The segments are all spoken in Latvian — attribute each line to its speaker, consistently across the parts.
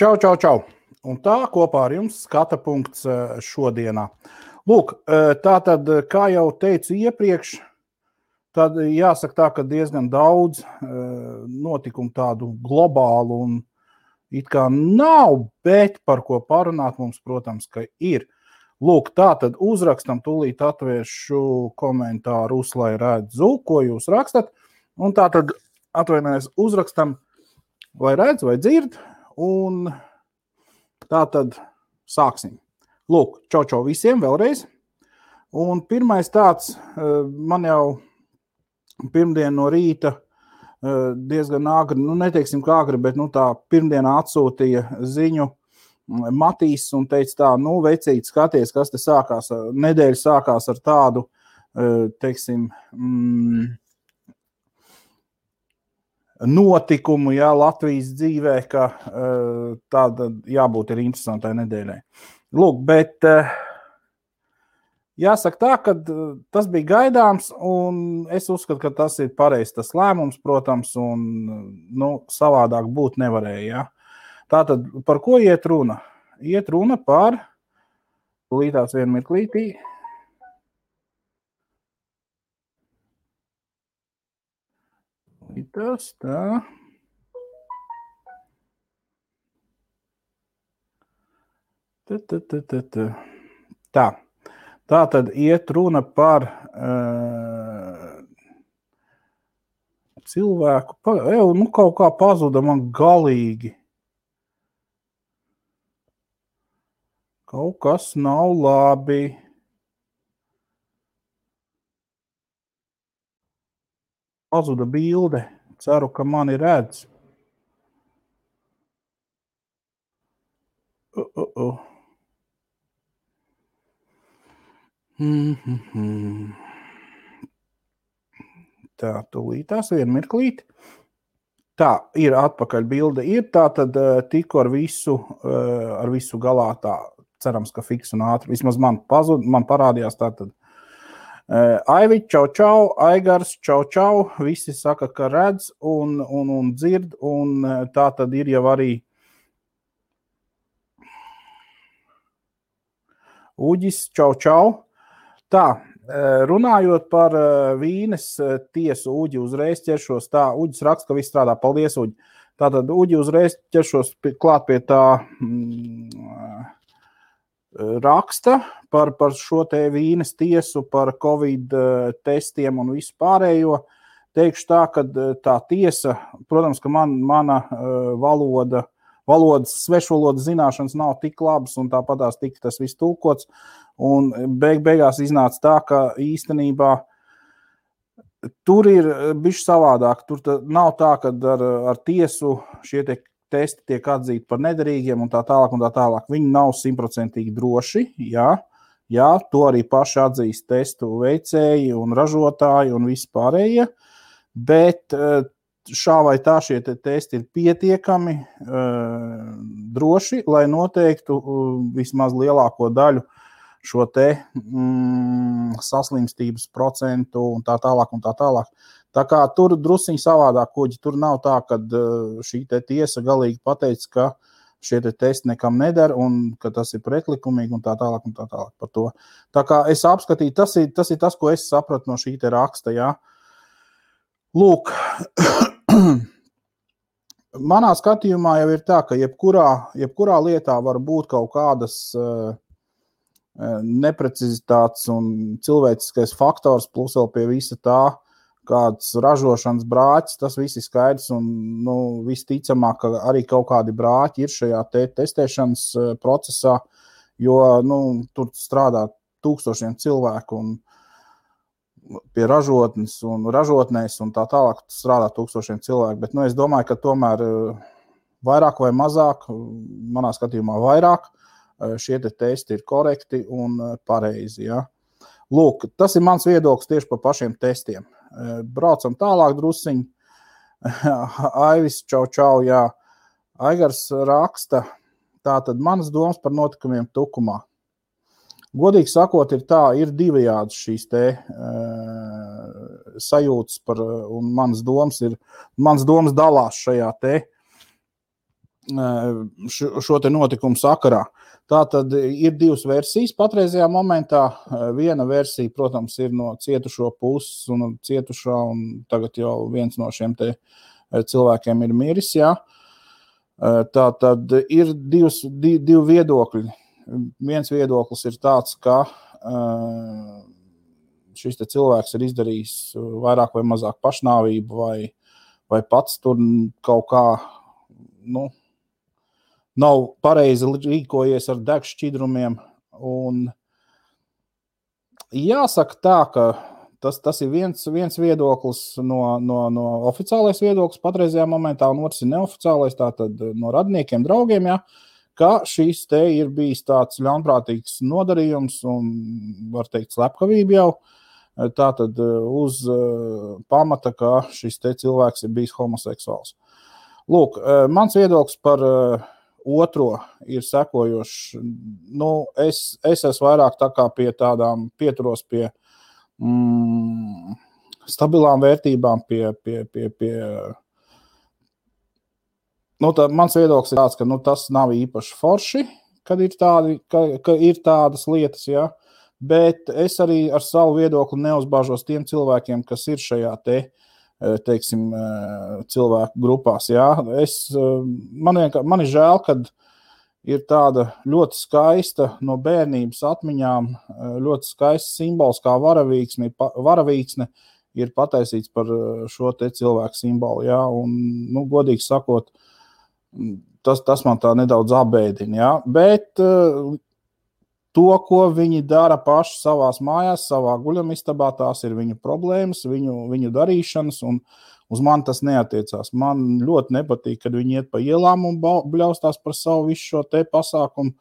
Speaker 1: Čau, čau, čau. Un tā kopā ar jums skata punkts šodienā. Lūk, tātad, kā jau teicu iepriekš, tad jāsaka tā, ka diezgan daudz notikumu tādu globālu un it kā nav, bet par ko parunāt mums, protams, ka ir. Lūk, tātad uzrakstam, tūlīt atvēršu komentāru, lai redzu, ko jūs rakstat. Un tātad atvainojies, uzrakstam, vai redz, vai dzird. Un tā tad sāksim. Lūk, čau visiem vēlreiz. Un pirmais tāds, man jau pirmdien no rīta diezgan agri, neteiksim kā agri, bet tā pirmdienā atsūtīja ziņu Matīs un teica tā, vecīt, skaties, kas te sākās. Nedēļa sākās ar tādu, teiksim, notikumu, Latvijas dzīvē, ka tāda jābūt ir interesantai nedēļai. Lūk, bet jāsaka tā, ka tas bija gaidāms, un es uzskatu, ka tas ir pareizs tas lēmums, protams, un savādāk būt nevarēja. Ja? Tātad, par ko iet runa? Iet runa par, līdās vienu mirklītī, tas tā. Tā tad iet runa par cilvēku, kaut kā pazuda man galīgi. Kaut kas nav labi. Pazuda bilde. Ceru, ka mani redz. Tā, tūlītās vienu mirklīti. Tā, ir atpakaļ bilde. Ir tā tad tikko ar visu galā tā, cerams, ka fiks un ātri. Vismaz man parādījās tā tad. Aivi, čau, Aigars, čau. Visi saka, ka redz un dzird, un tā tad ir jau arī Uģis, čau. Tā, runājot par Vīnes tiesu, Uģi uzreiz ķeršos. Tā, Uģis raksta, ka viss strādā. Paldies, Uģi. Tātad Uģi uzreiz ķeršos klāt pie tā raksta par šo te Vīnes tiesu, par Covid testiem un visu pārējo. Teikšu tā, ka tā tiesa, protams, ka mana valodas, svešvalodas zināšanas nav tik labas un tāpatās tika tas viss tulkots. Un beigās iznāca tā, ka īstenībā tur ir bišķi savādāk. Tur nav tā, ka ar tiesu šie testi tiek atzīti par nederīgiem un tā tālāk. Viņi nav 100% droši, jā, to arī paši atzīst testu veicēji un ražotāji un visi pārējie, bet šā vai tā šie testi ir pietiekami droši, lai noteiktu vismaz lielāko daļu šo te saslimstības procentu un tā tālāk. Tā kā tur drusiņi savādāk, Kuģi, tur nav tā, ka šī te tiesa galīgi pateica, ka šie te testi nekam neder un ka tas ir pretlikumīgi un tā tālāk par to. Tā kā es apskatīju, tas ir tas, ko es sapratu no šī te raksta, jā. Lūk, manā skatījumā jau ir tā, ka jebkurā lietā var būt kaut kādas neprecizitātes un cilvēciskais faktors, plus vēl pie visa tā, kāds ražošanas brāķis, tas viss ir skaidrs un visticamāk, ka arī kaut kādi brāķi ir šajā testēšanas procesā, jo tur strādā tūkstošiem cilvēku un pie ražotnes un ražotnēs un tā tālāk strādā tūkstošiem cilvēku, bet es domāju, ka tomēr vairāk vai mazāk, manā skatījumā vairāk, šie testi ir korekti un pareizi, ja. Lūk, tas ir mans viedoklis tieši par pašiem testiem. Braucam tālāk drusiņi. Aivis, čau, jā. Aigars raksta, Tātad manas domas par notikumiem Tukumā. Godīgi sakot, ir divējādas šīs te sajūtas par, un manas domas dalās šajā te šo te notikumu sakarā. Tātad ir divas versijas patreizajā momentā. Viena versija, protams, ir no cietušo puses un cietušā, un tagad jau viens no šiem te cilvēkiem ir miris, jā. Tātad ir divi viedokļi. Viens viedoklis ir tāds, ka šis te cilvēks ir izdarījis vairāk vai mazāk pašnāvību vai pats tur kaut kā, nav pareizi rīkojies ar degšķidrumiem. Un jāsaka tā, ka tas ir viens viedoklis no oficiālais viedoklis patreizajā momentā, un otrs ir neoficiālais, tātad no radiniekiem, draugiem, ja, ka šīs te ir bijis tāds ļaunprātīgs nodarījums un, var teikt, slepkavība jau, tātad uz pamata, ka šis te cilvēks ir bijis homoseksuāls. Lūk, mans viedoklis par otro ir sekojošs. Es esmu vairāk tā kā pie tādām pieturos pie stabilām vērtībām, mans viedoklis ir tāds, ka tas nav īpaši forši, kad ir tādas lietas, ja, bet es arī ar savu viedokli neuzbāžos tiem cilvēkiem, kas ir šajā teiksim, cilvēku grupās. Ja. Man ir žēl, kad ir tāda ļoti skaista no bērnības atmiņām, ļoti skaists simbols kā varavīksne ir pataisīts par šo te cilvēku simbolu. Ja. Un, godīgi sakot, tas man tā nedaudz apbēdina. Ja. Bet to, ko viņi dara paši savās mājās, savā guļamistabā, tās ir viņu problēmas, viņu darīšanas, un uz mani tas neatiecās. Man ļoti nepatīk, kad viņi iet pa ielām un bļaustās par savu visu šo te pasākumu,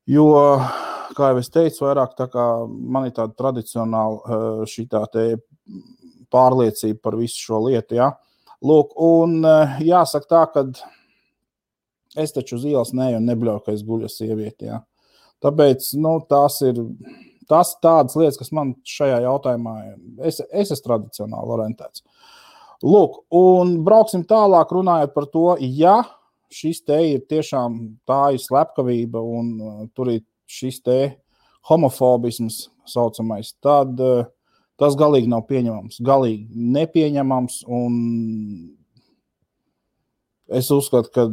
Speaker 1: jo, kā jau es teicu, vairāk tā kā man ir tāda tradicionāla šitā te pārliecība par visu šo lietu, ja. Lūk, un jāsaka tā, kad es taču uz ielas neju un nebļauju, ka es guļu ar sievieti, ja. Tāpēc, tās ir tādas lietas, kas man šajā jautājumā, es esmu tradicionāli orientēts. Lūk, un brauksim tālāk runājot par to, ja šis te ir tiešām tā ir slepkavība un tur ir šis te homofobisms saucamais, tad tas galīgi nav pieņemams. Galīgi nepieņemams, un es uzskatu, ka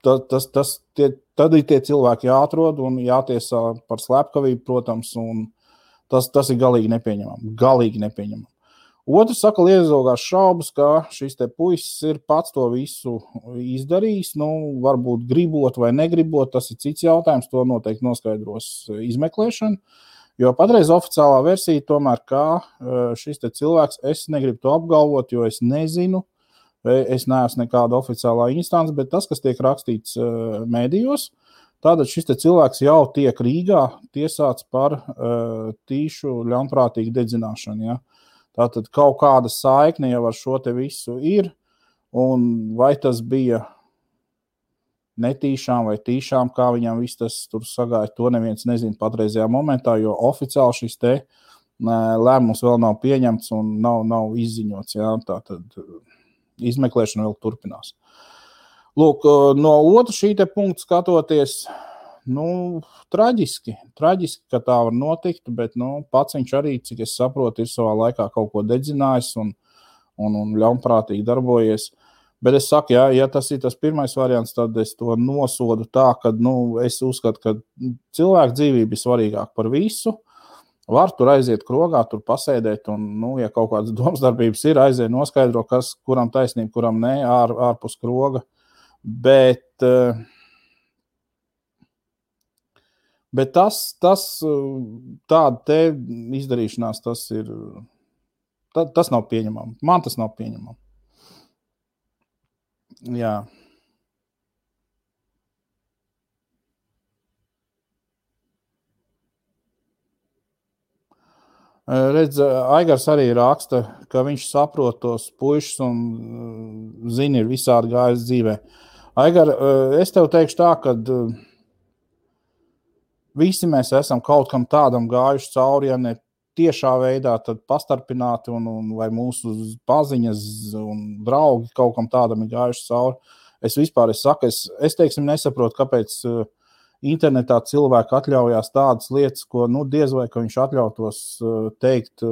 Speaker 1: tad ir tie cilvēki jāatrod un jātiesā par slepkavību, protams, un tas ir galīgi nepieņemami. Galīgi nepieņemami. Otrs saka, liezogās šaubas, ka šis te puisis ir pats to visu izdarījis, varbūt gribot vai negribot, tas ir cits jautājums, to noteikti noskaidros izmeklēšana, jo patreiz oficiālā versija tomēr, kā šis te cilvēks, es negribu to apgalvot, jo es nezinu, es neesmu nekāda oficiālā instance, bet tas, kas tiek rakstīts mēdījos, tātad šis te cilvēks jau tiek Rīgā tiesāts par tīšu ļaunprātīgu dedzināšanu. Ja? Tātad kaut kāda saikne jau ar šo te visu ir, un vai tas bija netīšām vai tīšām, kā viņam viss tas tur sagāja, to neviens nezina patreizajā momentā, jo oficiāli šis te lēmums vēl nav pieņemts un nav izziņots. Ja? Tātad izmeklēšana vēl turpinās. Lūk, no otra šī te punkta skatoties, traģiski, ka tā var notikt, bet, pats viņš arī, cik es saprotu, ir savā laikā kaut ko dedzinājis un ļaunprātīgi darbojies. Bet es saku, ja tas ir tas pirmais variants, tad es to nosodu tā, ka, es uzskatu, ka cilvēku dzīvība ir svarīgāk par visu. Var tur aiziet krogā, tur pasēdēt, un, ja kaut kādas domsdarbības ir, aiziet noskaidro, kas, kuram taisnība, kuram ne, ārpus kroga. Bet tas tāda te izdarīšanās, tas nav pieņemami. Man tas nav pieņemami. Jā. Redz, Aigars arī raksta, ka viņš saprot tos puišus un zina, ir visādi gājis dzīvē. Aigar, es tev teikšu tā, ka visi mēs esam kaut kam tādam gājuši cauri, ja ne tiešā veidā, tad pastarpināti vai mūsu paziņas un draugi kaut kam tādam ir gājuši cauri. Es saku, es teiksim, nesaprotu, kāpēc internetā cilvēki atļaujās tādas lietas, ko diez vai ka viņš atļautos teikt,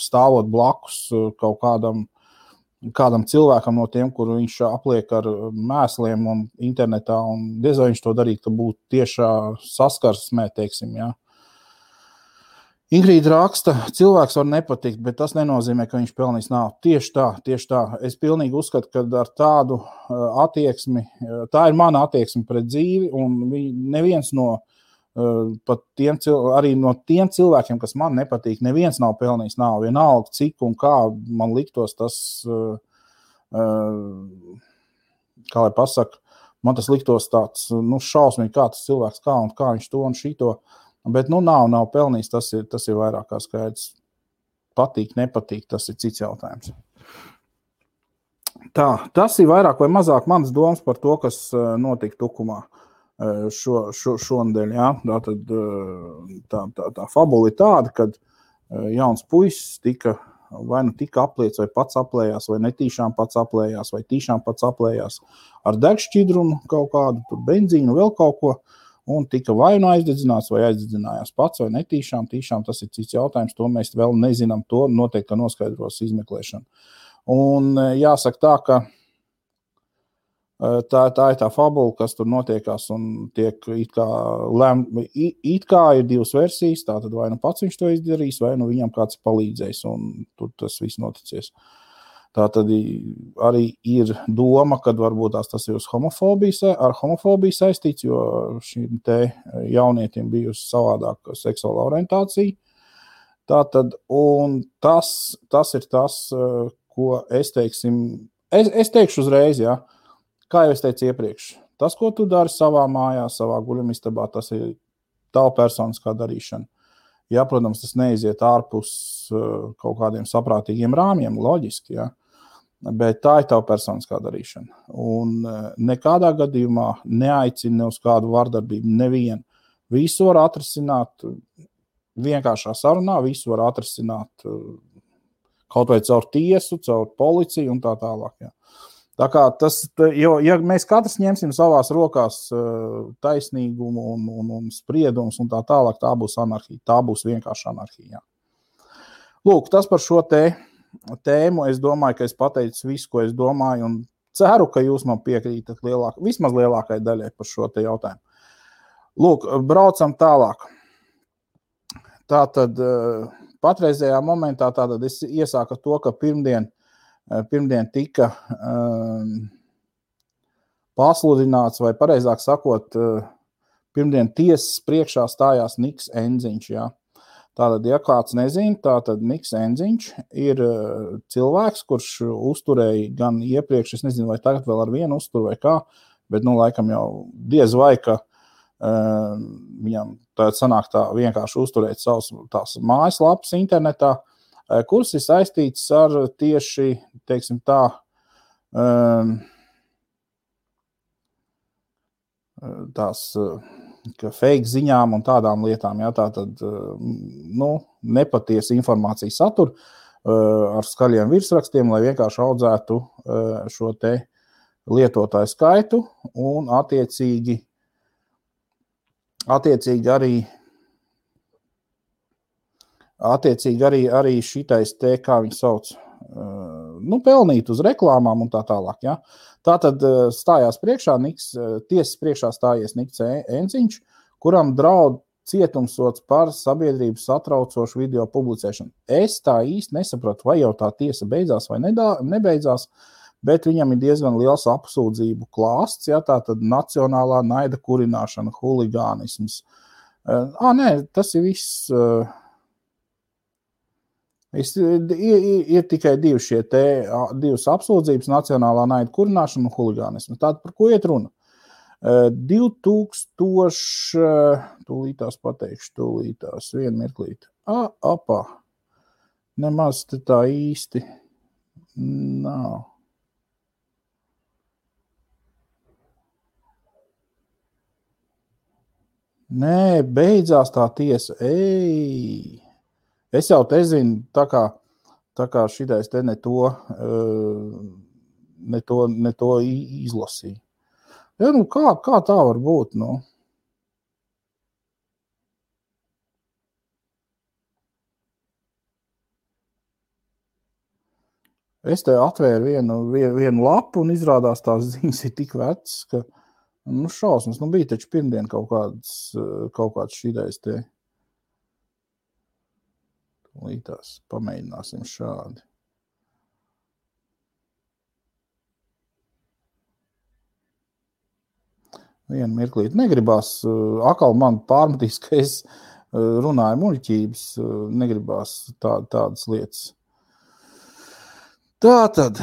Speaker 1: stāvot blakus kaut kādam cilvēkam no tiem, kuru viņš apliek ar mēsliem un internetā, un diez vai viņš to darītu, ka būtu tiešā saskarsmē, teiksim, jā. Ingrīda raksta, cilvēks var nepatikt, bet tas nenozīmē, ka viņš pelnīs naudu. Tieši tā. Es pilnīgi uzskatu, ka ar tādu attieksmi, tā ir mana attieksme pret dzīvi, un neviens pat arī no tiem cilvēkiem, kas man nepatīk, neviens nav pelnījis naudu. Vienalga, cik un kā man liktos tas, kā lai pasaka, man tas liktos tāds, šausmīgi, kā tas cilvēks, kā viņš to un šito. Bet, nav pelnījis, tas ir vairāk kā skaidrs. Patīk, nepatīk, tas ir cits jautājums. Tā, tas ir vairāk vai mazāk mans domas par to, kas notika Tukumā šonedēļ, jā. Tā fabula ir tāda, kad jauns puisis tika apliets, vai pats aplējās, vai netīšām pats aplējās, vai tīšām pats aplējās ar degšķidrumu kaut kādu, tur benzīnu, vēl kaut ko. Un tika vai aizdedzināts, vai aizdedzinājās pats, vai netīšām, tas ir cits jautājums, to mēs vēl nezinām, to noteikti noskaidros izmeklēšana. Un jāsaka tā, ka tā ir tā fabula, kas tur notiekās un tiek it kā ir divas versijas, tātad vai pats viņš to izdarīs, vai viņam kāds ir palīdzējis, un tur tas viss noticies. Tā tad arī ir doma, ka varbūt tas ir ar homofobiju saistīts, jo šīm te jaunietim bijusi savādāka seksuāla orientācija. Tātad, un tas ir tas, ko es teikšu uzreiz, jā, kā jau es teicu iepriekš. Tas, ko tu dari savā mājā, savā guļamistabā, tas ir tava personiskā darīšana. Ja, protams, tas neiziet ārpus kaut kādiem saprātīgiem rāmjiem, loģiski, jā. Bet tā ir tava personiskā darīšana. Un nekādā gadījumā neaicina uz kādu vardarbību nevienu. Visu var atrisināt vienkāršā sarunā, visu var atrisināt kaut vai caur tiesu, caur policiju un tā tālāk. Jā. Tā kā ja mēs katrs ņemsim savās rokās taisnīgumu un spriedumus un tā tālāk, tā būs anarhija. Tā būs vienkārši anarhija. Jā. Lūk, tas par šo tēmu. Es domāju, ka es pateicu visu, ko es domāju, un ceru, ka jūs man piekrītat vismaz lielākai daļai par šo te jautājumu. Lūk, braucam tālāk. Tātad patreizējā momentā es iesāku to, ka pirmdien tika pasludināts, vai pareizāk sakot, pirmdien tiesas priekšā stājās Niks Enziņš, jā. Tātad, ja kāds nezina, tātad Niks Enziņš ir cilvēks, kurš uzturēja gan iepriekš, es nezinu, vai tagad vēl ar vienu uztur vai kā, bet, laikam jau diez vai, ka viņam tagad sanāk tā vienkārši uzturēt savus tās mājaslapas internetā, kuras ir saistīts ar tieši, teiksim tā, tās fake ziņām un tādām lietām, jā, tātad, nepatiesa informācija satur ar skaļiem virsrakstiem, lai vienkārši audzētu šo te lietotāju skaitu un attiecīgi arī šitais te, kā viņi sauc, pelnīt uz reklāmām un tā tālāk, jā. Tātad stājās priekšā tiesas priekšā stājies Niks Enziņš, kuram draud cietumsods par sabiedrības satraucošu video publicēšanu. Es tā īsti nesapratu, vai jau tā tiesa beidzās vai nebeidzās, bet viņam ir diezgan liels apsūdzību klāsts, jā, tātad nacionālā naida kurināšana, huligānisms. Nē, tas ir viss. Ir tikai divas apsūdzības, nacionālā naida kurināšana un huligānismu. Tātad, par ko iet runa? 2000, tūlītās pateikšu, vienu mirklīti. Nemaz te tā īsti nav. Nē, beidzās tā tiesa. Ej! Es jau te zinu, tā kā šitais te ne to izlasīju. Ja, nu kā tā var būt, nu? Es te atvēru vienu lapu un izrādās tās ziņas ir tik vecas, ka, nu, šausmas, nu, bija taču pirmdien kaut kāds šitais te. Lītās, pamēģināsim šādi. Vienu mirklīt. Negribās, atkal man pārmetīs, ka es runāju muļķības, negribās tādas lietas. Tātad.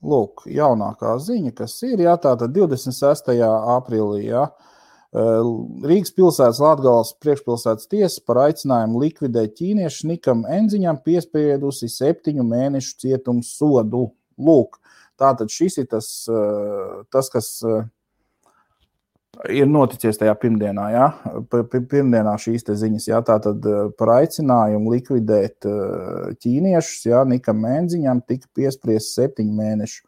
Speaker 1: Lūk, jaunākā ziņa, kas ir, jā, tātad 26. aprīlī, jā, Rīgas pilsētas Latgales priekšpilsētas tiesa par aicinājumu likvidēt ķīniešu Nikam Enziņam piespriedusi 7 mēnešu cietumsodu. Lūk, tātad šis ir tas kas ir noticies tajā pirmdienā, jā, pirmdienā šīs te ziņas, jā, tātad par aicinājumu likvidēt ķīniešus, jā, Nikam Enziņam tika piespriests 7 mēnešu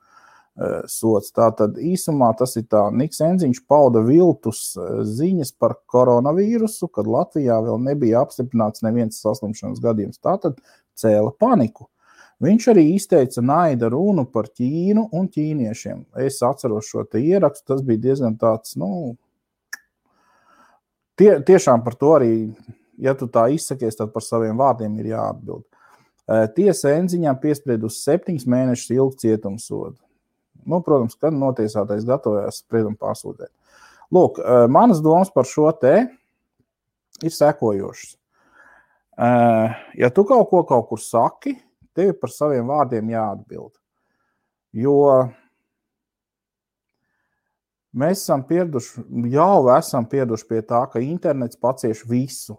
Speaker 1: sots. Tātad īsumā tas ir tā, Niks Enziņš pauda viltus ziņas par koronavīrusu, kad Latvijā vēl nebija apstiprināts neviens saslimšanas gadījums. Tātad cēla paniku. Viņš arī izteica naida runu par Ķīnu un ķīniešiem. Es atceros šo te ierakstu, tas bija diezgan tāds, nu, tiešām par to arī, ja tu tā izsakies, tad par saviem vārdiem ir jāatbild. Tiesa Enziņam piespriedusi 7 mēnešus ilgu cietumsodu. Nu, protams, kad notiesātais gatavojās spriedumu pārsūtēt. Lūk, manas domas par šo te ir sekojošas. Ja tu kaut kur saki, tev par saviem vārdiem jāatbild. Jo mēs esam pieraduši pie tā, ka internets pacieš visu.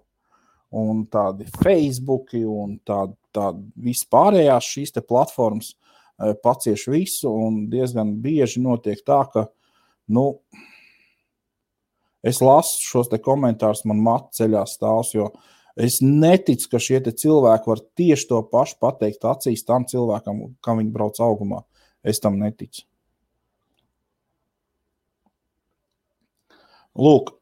Speaker 1: Un tādi Facebooki un tādi vispārējās šīs te platformas pacieš visu, un diezgan bieži notiek tā, ka, nu, es lasu šos te komentārus, man matu ceļā stāvs, jo es neticu, ka šie te cilvēki var tieši to pašu pateikt acīs tam cilvēkam, kam viņi brauc augumā. Es tam neticu. Lūk.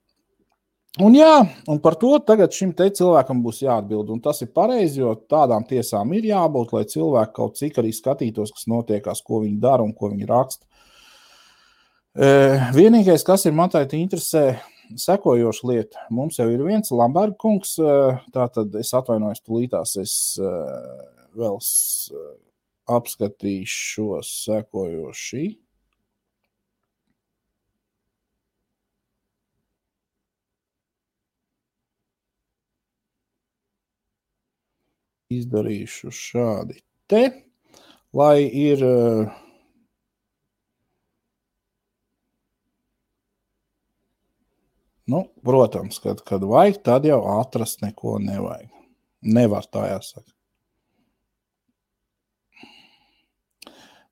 Speaker 1: Un jā, un par to tagad šim te cilvēkam būs jāatbild, un tas ir pareizi, jo tādām tiesām ir jābūt, lai cilvēki kaut cik arī skatītos, kas notiekās, ko viņi dara un ko viņi raksta. Vienīgais, kas ir man tādi interesē, sekojoša lieta. Mums jau ir viens Lamberga kungs, tātad es atvainojos tulītās, es vēl apskatīšu šo sekojoši. Izdarīšu šādi te, lai ir nu, protams, kad vajag, tad jau atrast neko nevajag. Nevar tā jāsaka.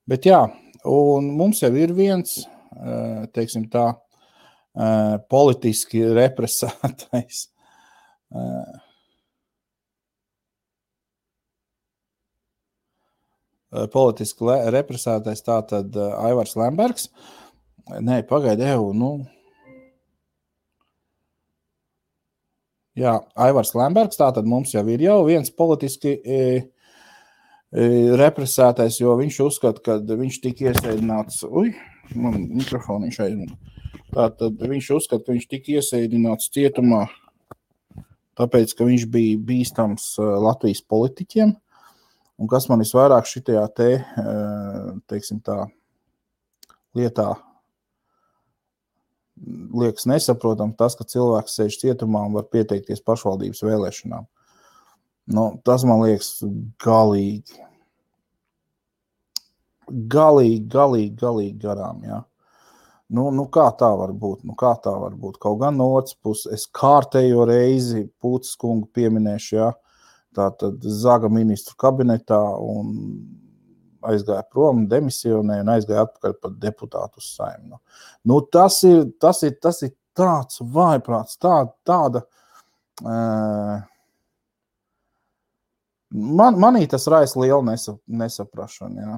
Speaker 1: Bet jā, un mums jau ir viens, teiksim tā, politiski represētais tātad Aivars Lembergs. Nē, pagaidi, Jā, Aivars Lembergs, tātad mums jau ir viens politiski represētais, jo viņš uzskata, ka viņš tika iesēdināts, man mikrofoniņš aizmūna. Tātad viņš uzskata, ka viņš tika iesēdināts cietumā, tāpēc, ka viņš bija bīstams Latvijas politiķiem. Un kas man visvairāk šitajā teiksim tā, lietā liekas nesaprotam, tas, ka cilvēks sēž cietumā un var pieteikties pašvaldības vēlēšanām. Nu, tas man liekas galīgi garām, jā. Nu, kā tā var būt? Kaut gan no otras puses, es kārtējo reizi Pūces kungu pieminēšu, jā. tātad Zaga ministru kabinetā un aizgāja prom, demisionēja un aizgāja atpakaļ par deputātu uz Saeimu. Nu, tas ir tāds vājprāts, tāda. Manī tas raisa lielu nesaprašanu, jā.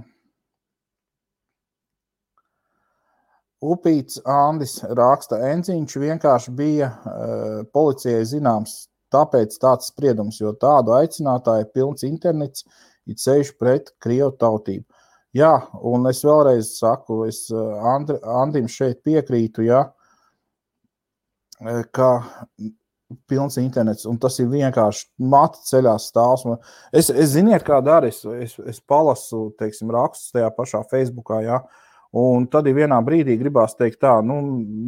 Speaker 1: Upīts Andis raksta, Enziņš vienkārši bija policijai zināms, tāpēc tāds spriedums, jo tādu aicinātāju pilns internets ir ceļš pret krievu tautību. Jā, un es vēlreiz saku, es Andim šeit piekrītu, jā, ka pilns internets, un tas ir vienkārši mati ceļās stāvs. Es ziniet, kā dara, es palasu, teiksim, rakstus tajā pašā Facebookā, jā, un tad vienā brīdī gribās teikt tā, nu,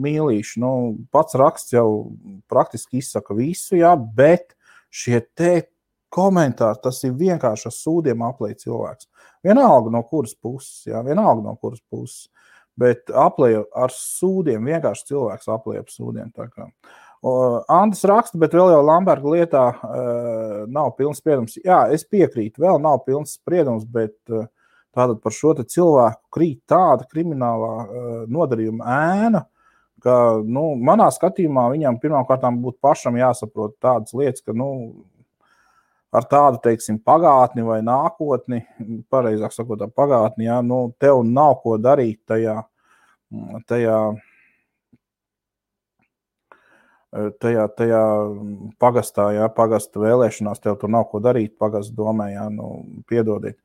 Speaker 1: mīlīši, nu, pats raksts jau praktiski izsaka visu, jā, bet šie te komentāri, tas ir vienkārši ar sūdiem aplēj cilvēks. Vienalga no kuras puses, bet aplēj ar sūdiem, vienkārši cilvēks aplēj ar sūdiem, tā kā. Andis raksta, bet vēl jau Lamberga lietā nav pilns spriedums. Jā, es piekrītu, vēl nav pilns spriedums, bet tātad par šo te cilvēku krīt tāda kriminālā nodarījuma ēna, ka, nu, manā skatījumā viņam pirmkārtām būtu pašam jāsaprot tādas lietas, ka, nu, ar tādu, teiksim, pagātni vai nākotni, pareizāk sakot, pagātni, jā, nu, tev nav ko darīt tajā pagastā, jā, pagasta vēlēšanās, tev tur nav ko darīt, pagasta domē, jā, nu, piedodiet.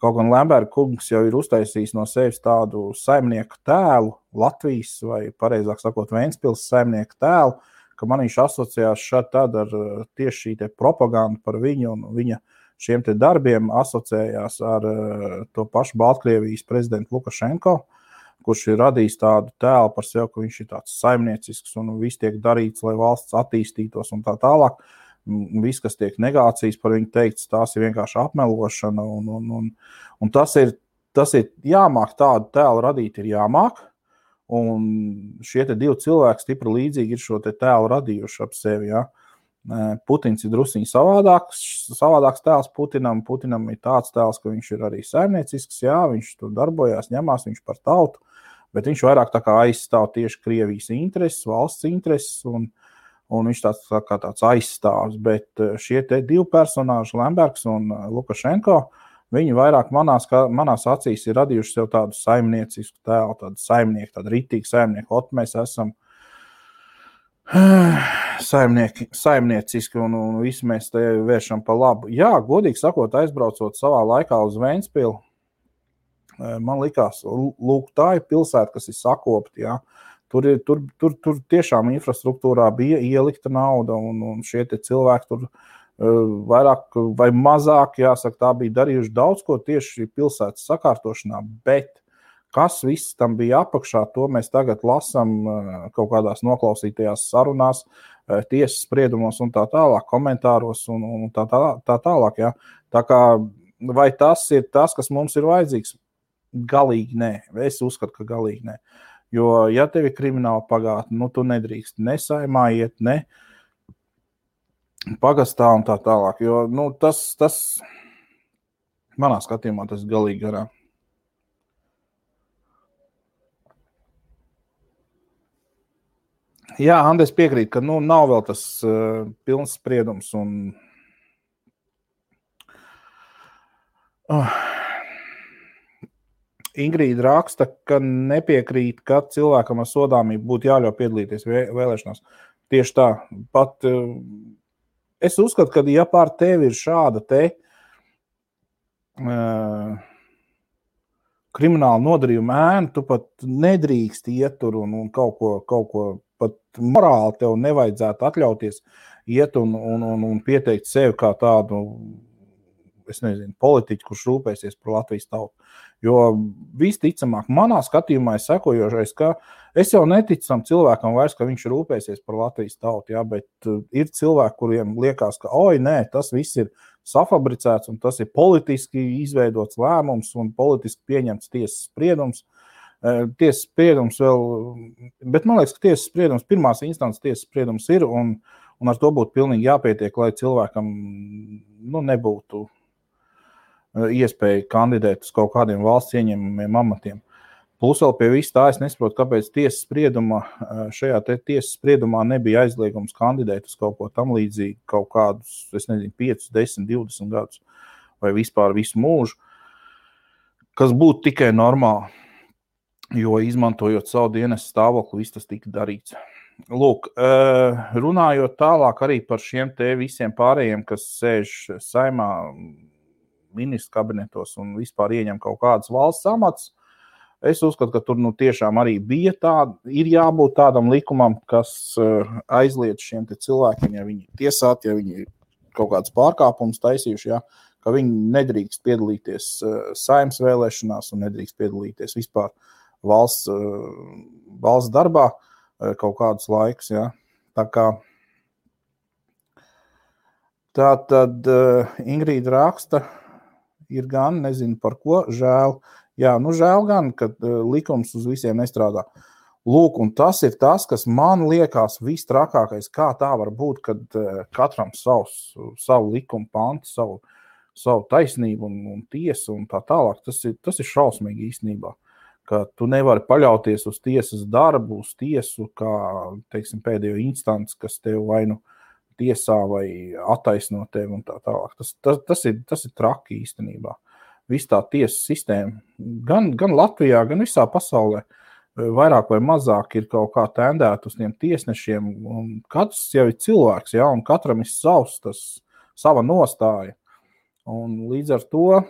Speaker 1: Kaut gan Lemberga kungs jau ir uztaisījis no sevis tādu saimnieku tēlu, Latvijas vai, pareizāk sakot, Ventspils saimnieku tēlu, ka man viņš asociējās šad tad ar tieši šī te propaganda par viņu un viņa šiem te darbiem asociējās ar to pašu Baltkrievijas prezidentu Lukašenko, kurš ir radījis tādu tēlu par sevi, ka viņš ir tāds saimniecisks un viss tiek darīts, lai valsts attīstītos un tā tālāk. Viss, kas tiek negācijas par viņu teikts, tās ir vienkārši apmelošana un tas ir jāmāk tādu tēlu radīt, ir jāmāk. Un šie te divi cilvēki stipri līdzīgi ir šo te tēlu radījuši ap sevi, jā. Putins ir drusiņi savādāks tēls Putinam ir tāds tēls, ka viņš ir arī saimniecisks, jā, viņš tur darbojās, ņemās viņš par tautu, bet viņš vairāk tā kā aizstāv tieši Krievijas intereses, valsts intereses, un viņš tāds aizstāvs, bet šie te divi personāži, Lembergs un Lukašenko, viņi vairāk manās acīs ir radījuši sev tādu saimniecisku tēlu, tādu ritīgu saimnieku, mēs esam saimnieciski un visi mēs te vēršam pa labu. Jā, godīgi sakot, aizbraucot savā laikā uz Ventspilu, man likās, lūk, tā ir pilsēta, kas ir sakopta, jā. Tur tiešām infrastruktūrā bija ielikta nauda, un šie te cilvēki tur vairāk vai mazāk, jāsaka, tā bija darījuši daudz ko tieši pilsētas sakārtošanā, bet kas viss tam bija apakšā, to mēs tagad lasam kaut kādās noklausītajās sarunās, tiesas spriedumos un tā tālāk, komentāros un tā tālāk. Jā. Tā kā, vai tas ir tas, kas mums ir vajadzīgs? Galīgi nē. Es uzskatu, ka galīgi nē. Jo, ja tev ir krimināla pagātne, nu, tu nedrīkst ne saimā iet, ne pagastā un tā tālāk. Jo, nu, tas manā skatījumā tas galīgi garā. Jā, Andres piekrīt, ka, nu, nav vēl tas pilns spriedums un Ingrīda raksta, ka nepiekrīt, ka cilvēkam ar sodāmību būtu jāļauj piedalīties vēlēšanās. Tieši tā. Pat es uzskatu, ka ja pār tevi ir šāda te krimināla nodarījuma ēna, tu pat nedrīkst iet tur un kaut ko pat morāli tev nevajadzētu atļauties iet un pieteikt sevi kā tādu, es nezinu, politiķu, kurš rūpēsies par Latvijas tautu. Jo visticamāk, manā skatījumā ir sekojošais, ka es jau neticu tam cilvēkam vairs, ka viņš rūpēsies par Latvijas tautu, jā, bet ir cilvēki, kuriem liekas, ka, nē, tas viss ir safabricēts un tas ir politiski izveidots lēmums un politiski pieņemts tiesas spriedums. Tiesas spriedums vēl, bet man liekas, ka tiesas spriedums, pirmās instances tiesas spriedums ir un ar to būtu pilnīgi jāpietiek, lai cilvēkam nebūtu iespēja kandidēt uz kaut kādiem valsts ieņemamiem amatiem. Plus vēl pie viss tā, es nesaprotu, kāpēc šajā tiesas spriedumā nebija aizliegums kandidēt uz kaut ko tam līdzīgi, kaut kādus, 5, 10, 20 gadus vai vispār visu mūžu, kas būtu tikai normāli, jo izmantojot savu dienas stāvokli, viss tas tika darīts. Lūk, runājot tālāk arī par šiem te visiem pārējiem, kas sēž saimā, ministru kabinetos un vispār ieņem kaut kādas valsts amats, es uzskatu, ka tur tiešām arī bija ir jābūt tādam likumam, kas aizliedz šiem te cilvēkiem, ja viņi tiesāti, ja viņi kaut kāds pārkāpums taisījuši, ja, ka viņi nedrīkst piedalīties saimnes vēlēšanās un nedrīkst piedalīties vispār valsts darbā kaut kādus laikus. Ja. Tā kā tā tad Ingrīda raksta, ir gan, nezinu par ko, žēl. Jā, žēl gan, ka likums uz visiem nestrādā. Lūk, un tas ir tas, kas man liekas vistrakākais, kā tā var būt, kad katram savu likumu pantu, savu taisnību un tiesu un tā tālāk. Tas ir šausmīgi īstenībā, ka tu nevari paļauties uz tiesas darbu, uz tiesu, kā, teiksim, pēdējo instanci, kas tev vai nu tiesā vai attaisno tevi un tā tālāk. Tas ir traki īstenībā. Viss tā tiesas sistēma, gan Latvijā, gan visā pasaulē, vairāk vai mazāk ir kaut kā tendēta uz tiem tiesnešiem, un katrs jau ir cilvēks, ja, un katram ir sava nostāja. Un līdz ar to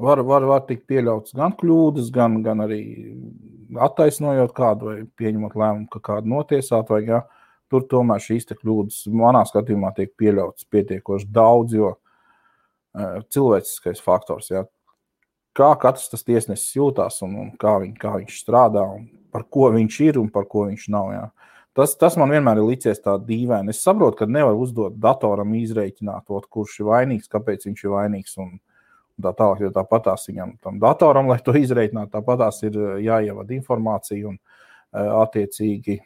Speaker 1: var tikt pieļauts gan kļūdas, gan arī attaisnojot kādu vai pieņemot lēmumu, ka kādu notiesāt, vai ja, tur tomēr šīs te kļūdas manā skatījumā tiek pieļautas pietiekoši daudz, jo cilvēciskais faktors, ja. Kā katrs tas tiesnesis jūtās un kā viņš strādā un par ko viņš ir un par ko viņš nav. Ja. Tas man vienmēr ir licies tā dīvaini. Es saprotu, ka nevar uzdot datoram izreikināt, kurš ir vainīgs, kāpēc viņš ir vainīgs un tā tālāk, jo tāpatās viņam tam datoram, lai to izreikinātu, tāpatās ir jāievada informācija un attiecīgi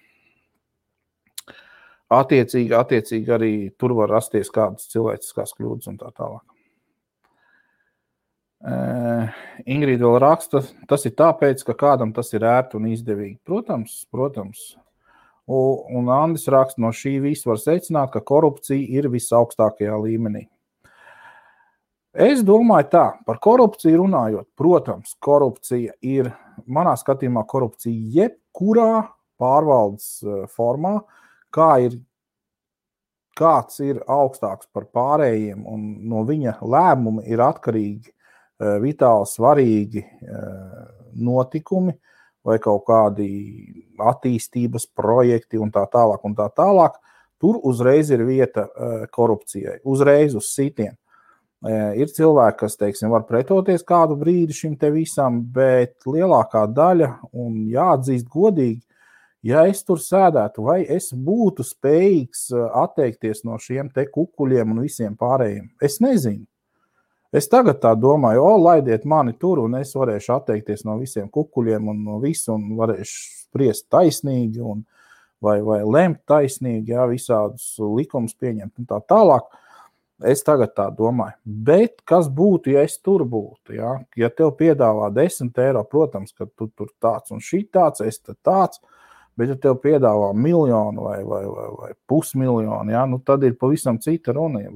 Speaker 1: arī tur var rasties kādas cilvēciskās kļūdas un tā tālāk. Ingrīda vēl raksta, tas ir tāpēc, ka kādam tas ir ērti un izdevīgi. Protams. Un Andis raksta, no šī visa var secināt, ka korupcija ir visaugstākajā līmenī. Es domāju tā, par korupciju runājot, protams, korupcija ir, manā skatījumā, korupcija jebkurā pārvaldes formā, kāds ir augstāks par pārējiem un no viņa lēmumi ir atkarīgi vitāli svarīgi notikumi vai kaut kādi attīstības projekti un tā tālāk, tur uzreiz ir vieta korupcijai, uzreiz uz sitienu. Ir cilvēki, kas, teiksim, var pretoties kādu brīdi šim te visam, bet lielākā daļa, un jāatzīst godīgi, ja es tur sēdētu, vai es būtu spējīgs atteikties no šiem te kukuļiem un visiem pārējiem, es nezinu. Es tagad tā domāju, laidiet mani tur, un es varēšu atteikties no visiem kukuļiem un no visu, un varēšu spriest taisnīgi, vai lemt taisnīgi, ja, visādus likumus pieņemt un tā tālāk. Es tagad tā domāju. Bet kas būtu, ja es tur būtu? Ja, ja tev piedāvā 10 eiro, protams, ka tu tur tāds un šī tāds, es tāds, bet ja tev piedāvā 1 miljonu vai pusmiljonu, ja, tad ir pavisam cita runa.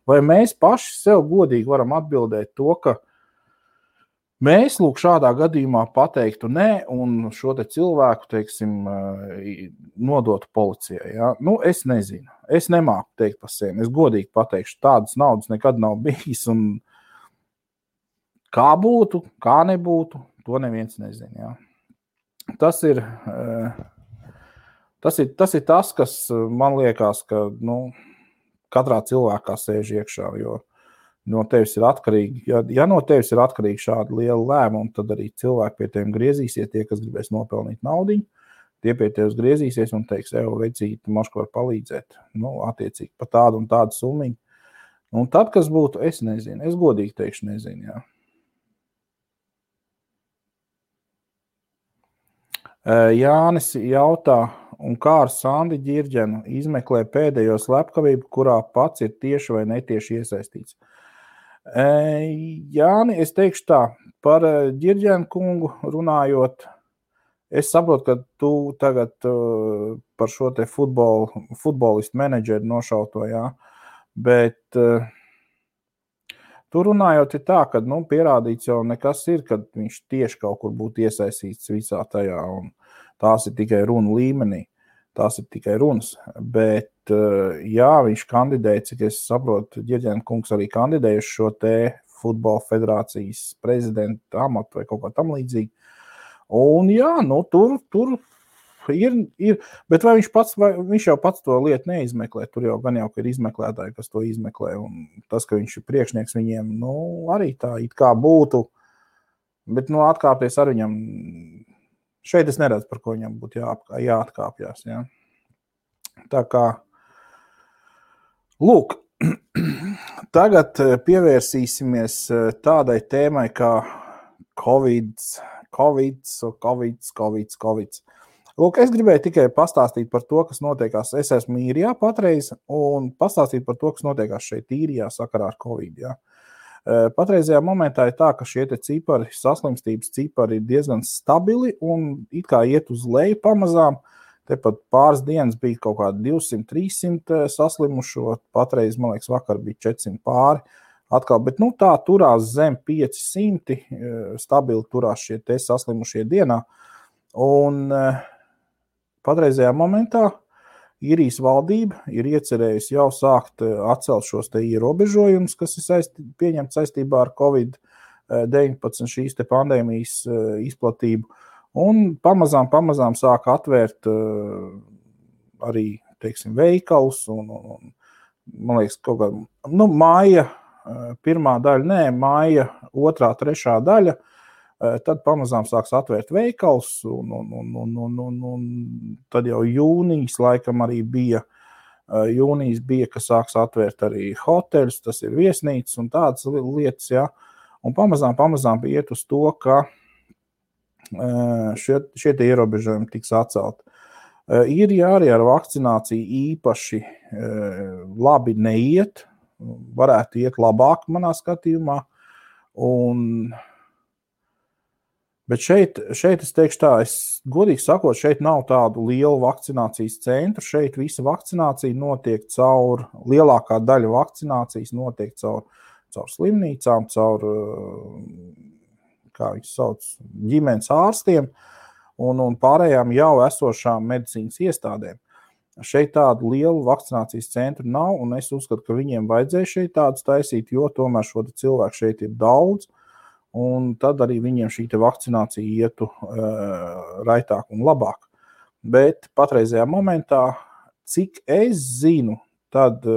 Speaker 1: Vai mēs paši sev godīgi varam atbildēt to, ka mēs lūk šādā gadījumā pateiktu nē un šo te cilvēku, teiksim, nodotu policijai. Ja? Es nezinu. Es nemāku teikt par sevi. Es godīgi pateikšu, tādas naudas nekad nav bijis. Un kā būtu, kā nebūtu, to neviens nezina. Ja? Tas ir tas, kas man liekas, ka katrā cilvēkā sēž iekšā, jo no tevis ir atkarīgi, ja no tevis ir atkarīgi šādi liela lēmumi, tad arī cilvēki pie tiem griezīsies, tie, kas gribēs nopelnīt naudiņu, tie pie tevis griezīsies un teiks, vecīt, moška var palīdzēt, attiecīgi pa tādu un tādu summiņu. Un tad, kas būtu, es nezinu, es godīgi teikšu, nezinu, jā. Jānis jautā, un kā ar Sandi Ģirģenu izmeklē pēdējo slepkavību, kurā pats ir tieši vai netieši iesaistīts. Jāni, es teikšu tā, par Ģirģenu kungu runājot, es saprotu, ka tu tagad par šo te futbolistu menedžeru nošauto, jā, bet tu runājot ir tā, ka pierādīts jau nekas ir, kad viņš tieši kaut kur būtu iesaistīts visā tajā, un tās ir tikai runa līmenī, tās ir tikai runas, bet jā, viņš kandidēja, cik es saprotu, Ģirģena kungs arī kandidēja uz šo te futbola federācijas prezidenta amatu vai kaut kā tam līdzīgi. Un jā, tur ir, bet vai viņš jau pats to lietu neizmeklē, tur jau gan jau, ka ir izmeklētāji, kas to izmeklē, un tas, ka viņš ir priekšnieks viņiem, arī tā it kā būtu, bet atkāpties ar viņam, šeit es neredzu, par ko viņam būtu jāatkāpjās, jā. Tā kā, lūk, tagad pievērsīsimies tādai tēmai kā Covid. Lūk, es gribēju tikai pastāstīt par to, kas notiekās. Es esmu Īrijā patreiz un pastāstīt par to, kas notiekās šeit Īrijā sakarā ar Covid. Jā. Patreizajā momentā ir tā, ka šie te cipari, saslimstības cipari ir diezgan stabili un it kā iet uz leju pamazām. Tepat pāris dienas bija kaut kādi 200-300 saslimušo, patreiz, man liekas, vakar bija 400 pāri. Atkal, bet tā turās zem 500, stabili turās šie te saslimušie dienā. Un patreizajā momentā Īrijas valdība ir iecerējusi jau sākt atcelt šos te ierobežojumus, kas ir pieņemts saistībā ar Covid-19 šīs te pandēmijas izplatību. Un pamazām sāk atvērt arī, teiksim, veikalus un man liekas, kaut kā, māja pirmā daļa, māja otrā, trešā daļa, tad pamazām sāks atvērt veikals, un tad jau jūnijas laikam arī bija, ka sāks atvērt arī hoteļus, tas ir viesnīcas un tādas lietas, jā, un pamazām iet uz to, ka šie tie ierobežojumi tiks atcelti. Īrijā arī ar vakcināciju īpaši labi neiet, varētu iet labāk manā skatījumā, bet šeit es teikšu tā, godīgi sakot, šeit nav tādu lielu vakcinācijas centru, šeit visa vakcinācija notiek lielākā daļa vakcinācijas notiek caur slimnīcām, caur, kā viņus sauc, ģimenes ārstiem un pārējām jau esošām medicīnas iestādēm. Šeit tādu lielu vakcinācijas centru nav, un es uzskatu, ka viņiem vajadzēja šeit tādus taisīt, jo tomēr šo cilvēku šeit ir daudz, un tad arī viņiem šī te vakcinācija ietu raitāk un labāk. Bet patreizajā momentā, cik es zinu, tad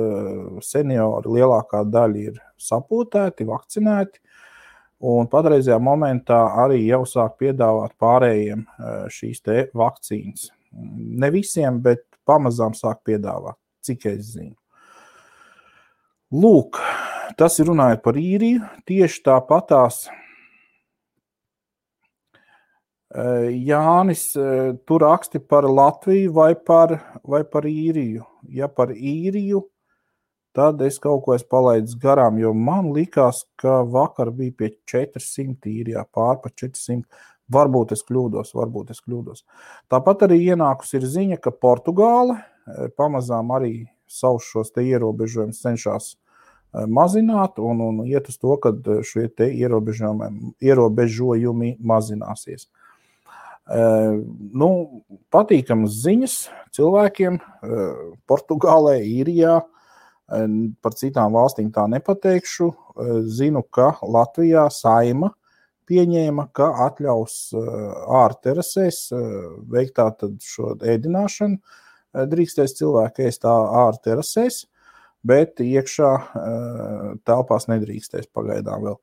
Speaker 1: seniori lielākā daļa ir sapotēti, vakcinēti, un patreizajā momentā arī jau sāk piedāvāt pārējiem šīs te vakcīnas. Ne visiem, bet pamazām sāk piedāvāt, cik es zinu. Lūk, tas ir runājot par Īriju, tieši tāpatās Jānis, tu raksti par Latviju vai par Īriju. Ja par Īriju, tad es kaut ko esmu palaidis garām, jo man likās, ka vakar bija pie 400 Īrijā, pār par 400. Varbūt es kļūdos. Tāpat arī ienākus ir ziņa, ka Portugāle pamazām arī savus šos te ierobežojumus cenšas mazināt un iet uz to, ka šie te ierobežojumi mazināsies. Patīkamas ziņas cilvēkiem Portugālē, Īrijā, par citām valstīm tā nepateikšu. Zinu, ka Latvijā Saeima pieņēma, ka atļaus ārterasēs veikt tātad šo ēdināšanu. Drīkstēs cilvēki ēst ārterasēs, bet iekšā telpās nedrīkstēs pagaidām vēl.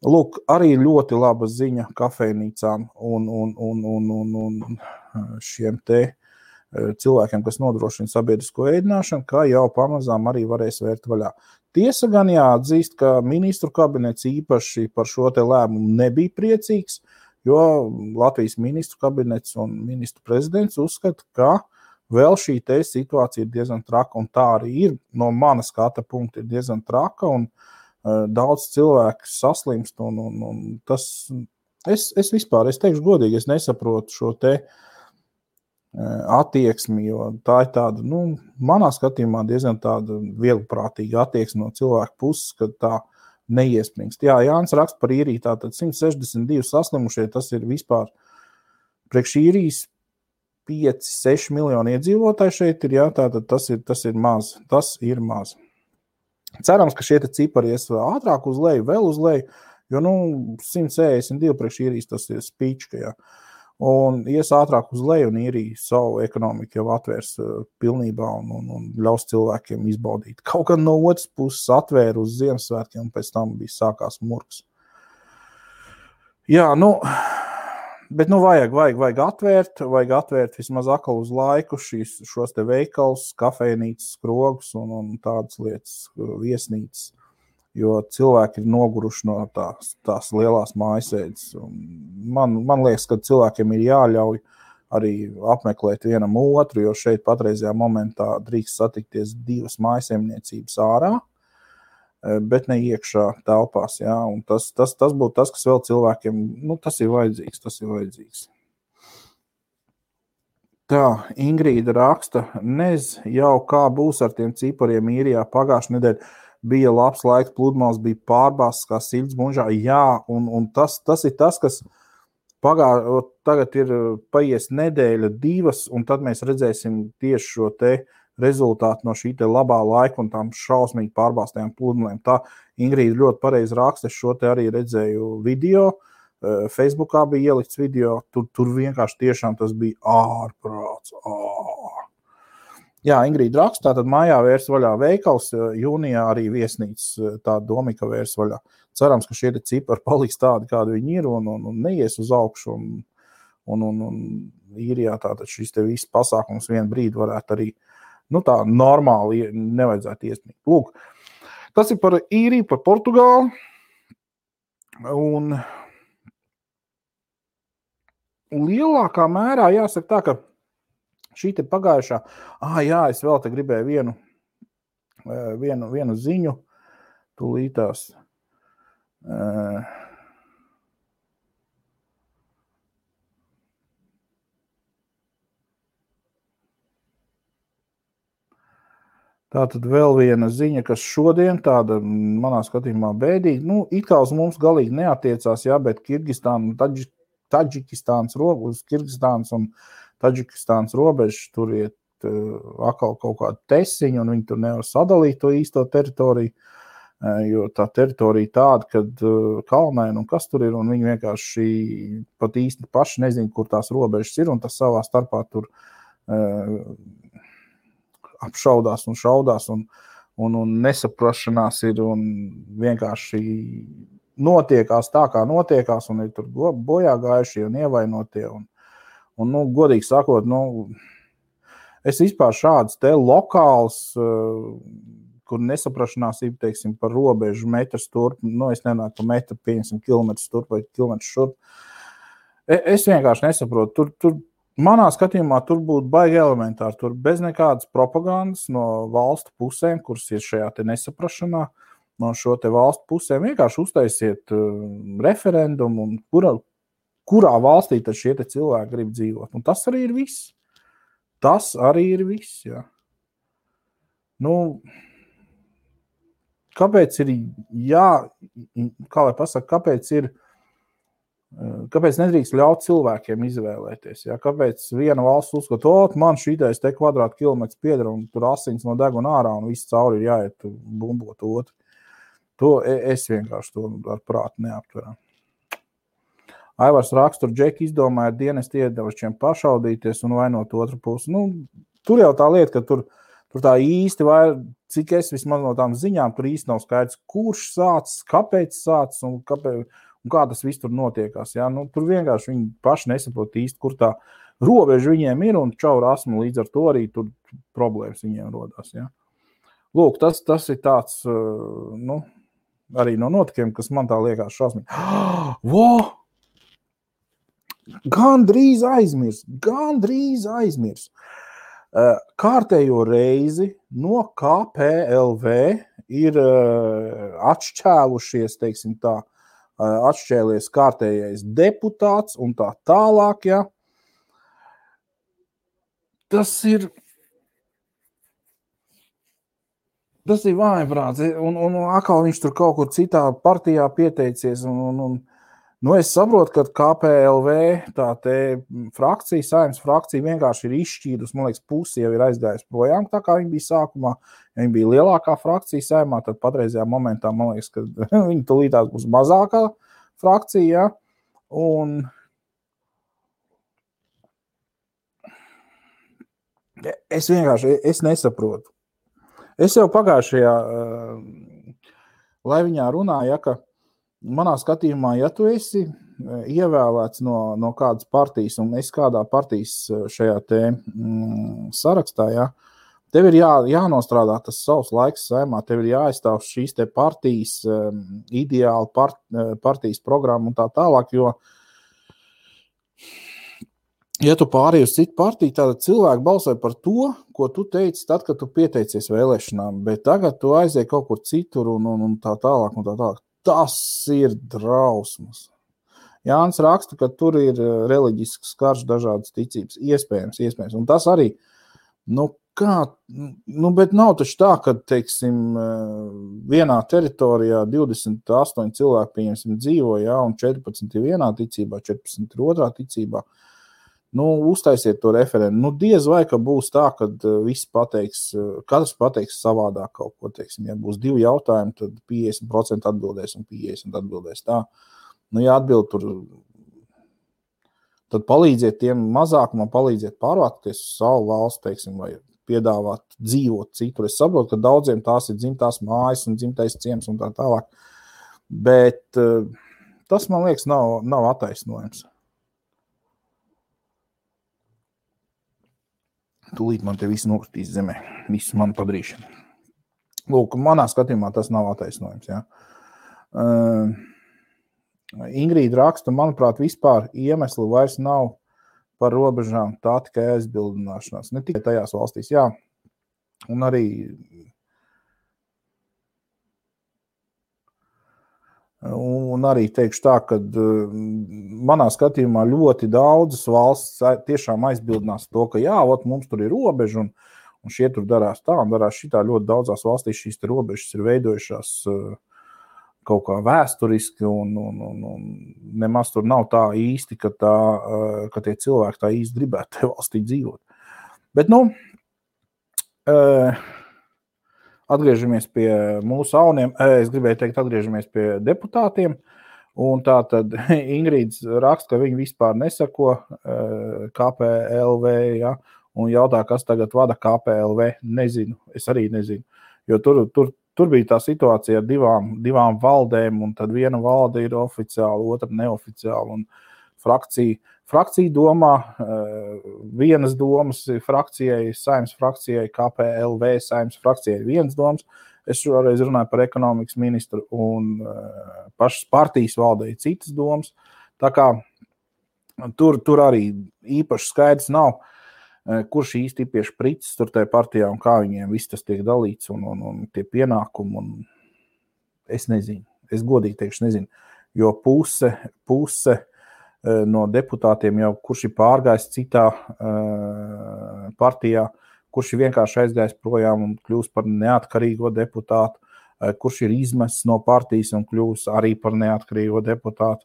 Speaker 1: Lūk, arī ļoti laba ziņa kafejnīcām un šiem te cilvēkiem, kas nodrošina sabiedrisko ēdināšanu, kā jau pamazām arī varēs vērt vaļā. Tiesa gan jāatzīst, ka ministru kabinets īpaši par šo te lēmumu nebija priecīgs, jo Latvijas ministru kabinets un ministru prezidents uzskata, ka vēl šī te situācija ir diezgan traka, un tā arī ir no mana skata punkta ir diezgan traka, un daudz cilvēku saslimst, un tas, es vispār, es teikšu godīgi, es nesaprotu šo te attieksmi, jo tā ir tāda, manā skatījumā diezgan tāda vieglprātīga attieksme no cilvēku puses, kad tā neiespringst. Jā, Jānis raksta par Īriju, tātad 162 saslimušie, tas ir vispār priekš Īrijas 5-6 miljoni iedzīvotāji šeit ir, jā, tātad tas ir maz. Cerams, ka šie cipari ies ātrāk uz leju, vēl uz leju, jo, 162 priekš Īrijas tas ir spīčka, jā. Un ies ātrāk uz leju, un Īrija savu ekonomiku jau atvērs pilnībā un ļaus cilvēkiem izbaudīt. Kaut gan no otras puses atvēra uz Ziemassvētkiem, un pēc tam bija sākās murgs. Jā, bet vajag atvērt vismaz atkal uz laiku šos te veikals, kafejnīcas, skrogus un tādas lietas, viesnīcas. Jo cilvēki ir noguruši no tās lielās mājasēdes. Man liekas, ka cilvēkiem ir jāļauj arī apmeklēt vienam otru, jo šeit patreizajā momentā drīkst satikties 2 mājsaimniecības ārā, bet ne iekšā telpās. Jā, un tas būtu tas, kas vēl cilvēkiem, tas ir vajadzīgs. Tā, Ingrīda raksta, jau kā būs ar tiem cipariem Īrijā pagājušajā nedēļā. Bija labs laiks, pludmales bija pārbāztas kā siļas mužā. Jā, un tas ir tas, kas tagad ir paies nedēļa, 2, un tad mēs redzēsim tieši šo te rezultātu no šī te labā laika un tām šausmīgi pārbāztajām pludmalēm. Tā Ingrīda ļoti pareizi raksta, es šo te arī redzēju video, Facebookā bija ielikts video, tur vienkārši tiešām tas bija ārprāts. Jā, Ingrīda raksta, tātad mājā vērs vaļā veikals, jūnijā arī viesnīca tā Domika vērs vaļā. Cerams, ka šie cipari paliks tādi, kādi viņi ir, un neies uz augšu, un Īrijā tātad šis te viss pasākums vienu brīdi varētu arī, tā normāli nevajadzētu iesniegt. Lūk, tas ir par Īriju, par Portugāli, un lielākā mērā jāsaka tā, ka šī te pagājušā, jā, es vēl te gribēju vienu ziņu, tūlītās. Tātad vēl viena ziņa, kas šodien tāda, manā skatījumā bēdīga, it kā uz mums galīgi neatiecās, jā, bet Kirgistāna, Taģikistāns robežas, Kirgistāns un Taģikistāns robežas, tur iet atkal kaut kāda tesiņa, un viņi tur nevar sadalīt to īsto teritoriju, jo tā teritorija tāda, kad kalnaina un kas tur ir, un viņi vienkārši pat īsti paši nezin, kur tās robežas ir, un tas savā starpā tur apšaudās un šaudās, un nesaprašanās ir, un vienkārši notiekās tā, kā notiekās, un ir tur bojā gājušie un ievainotie, un godīgi sakot, es vispār šāds te lokāls, kur nesaprašanās ir, teiksim, par robežu metrs turp, es nenāku pa metru, pieņemsim kilometrus turp vai kilometrus šurp. Es vienkārši nesaprotu. Tur manā skatījumā tur būtu baigi elementāri, tur bez nekādas propagandas no valstu pusēm, kuras ir šajā te nesaprašanā, no šo te valstu pusēm vienkārši uztaisiet referendumu, un kurā valstī tad šie te cilvēki grib dzīvot. Un tas arī ir viss. Jā. Kāpēc ir kāpēc nedrīkst ļaut cilvēkiem izvēlēties? Jā? Kāpēc viena valsts uzskata, man šitais te kvadrātkilometrs pieder, un tur asins no deguna ārā, un viss cauri ir jāiet bumbot otru. To es vienkārši to ar prātu neaptveru. Aivars raksta, tur Džeki izdomāja dienesti iedevašiem pašaudīties un vainot otru pusi. Tur jau tā lieta, ka tur tā īsti cik es vismaz no tām ziņām, tur īsti nav skaidrs, kurš sācis, kāpēc sācis un kā tas viss tur notiekās. Jā? Tur vienkārši viņi paši nesaprot īsti, kur tā robeža viņiem ir, un čau rasmu līdz ar to arī tur problēmas viņiem rodās. Jā? Lūk, tas ir tāds, arī no notikiem, kas man tā liekas šausmīgi. Gandrīz aizmirs. Kārtējo reizi no KPLV ir atšķēlušies, teiksim tā, atšķēlies kārtējais deputāts un tā tālāk, ja. Tas ir vājprāts, un atkal viņš tur kaut kur citā partijā pieteicies, nu es saprotu, ka KPLV tā te frakcija, Saeimas frakcija vienkārši ir izšķīdus, man liekas, pusi jau ir aizgājis projām, tā kā viņa bija sākumā, ja viņa bija lielākā frakcija Saeimā, tad patreizajā momentā, man liekas, ka viņa tulītās būs mazākā frakcija, ja? Un es vienkārši, es nesaprotu. Es jau pagājušajā Laiviņā runāju, ja, ka manā skatījumā, ja tu esi ievēlēts no kādas partijas un esi kādā partijas šajā te sarakstā, ja, tev ir jānostrādā tas savs laiks Saeimā, tev ir jāaizstāv šīs te partijas ideāli, partijas programma un tā tālāk, jo ja tu pārēji uz citu partiju, tad cilvēki balsoja par to, ko tu teici tad, kad tu pieteicies vēlēšanām, bet tagad tu aizēji kaut kur citur un tā tālāk un tā tālāk. Tas ir drausmas. Jānis raksta, ka tur ir reliģisks karš, dažādas ticības. Iespējams. Un tas arī, bet nav taču tā, ka, teiksim, vienā teritorijā 28 cilvēki, pieņemsim, dzīvo, ja, un 14 ir vienā ticībā, 14 ir otrā ticībā. Uztaisiet to referendumu. Diez vai, ka būs tā, ka visi katrs pateiks savādāk kaut ko, teiksim, ja būs 2 jautājumi, tad 50% atbildēs un 50% atbildēs tā. Ja atbild tur, tad palīdziet tiem mazākumam, palīdziet pārvākties uz savu valsts, teiksim, vai piedāvāt dzīvot citur. Es saprotu, ka daudziem tās ir dzimtās mājas un dzimtais ciems un tā tālāk, bet tas, man liekas, nav attaisnojums. Tūlīt man te visu nokritīs zemē, visu manu padarīšanu. Lūk, manā skatījumā tas nav attaisnojums. Ja. Ingrīda raksta, manuprāt, vispār iemesli vairs nav par robežām, tā tikai aizbildināšanās. Ne tikai tajās valstīs, jā. Un arī teikšu tā, ka manā skatījumā ļoti daudzas valsts tiešām aizbildinās to, ka jā, mums tur ir robeža un šie tur darās tā un darās šitā. Ļoti daudzās valstīs šīs robežas ir veidojušās kaut kā vēsturiski un nemaz tur nav tā īsti, ka tie cilvēki tā īsti gribētu te valstī dzīvot. Bet, atgriežamies pie mūsu auniem, es gribēju teikt, atgriežamies pie deputātiem, un tā tad Ingrīds raksta, ka viņi vispār nesako KPLV, ja, un jautā, kas tagad vada KPLV, nezinu, es arī nezinu, jo tur bija tā situācija ar divām valdēm, un tad viena valde ir oficiāla, otra neoficiāla, un Frakcija domā, vienas domas frakcijai, Saeimas frakcijai, KPLV Saeimas frakcijai vienas domas. Es šoreiz runāju par ekonomikas ministru un pašas partijas valdei citas domas. Tā kā tur arī īpaši skaidrs nav, kurš īsti ir pie šprices tur tajā partijā un kā viņiem viss tas tiek dalīts un tie pienākumi. Un es nezinu, es godīgi teikšu nezinu, jo puse no deputātiem jau, kurš ir pārgājis citā partijā, kurš ir vienkārši aizgājis projām un kļūst par neatkarīgo deputātu, kurš ir izmests no partijas un kļūst arī par neatkarīgo deputātu.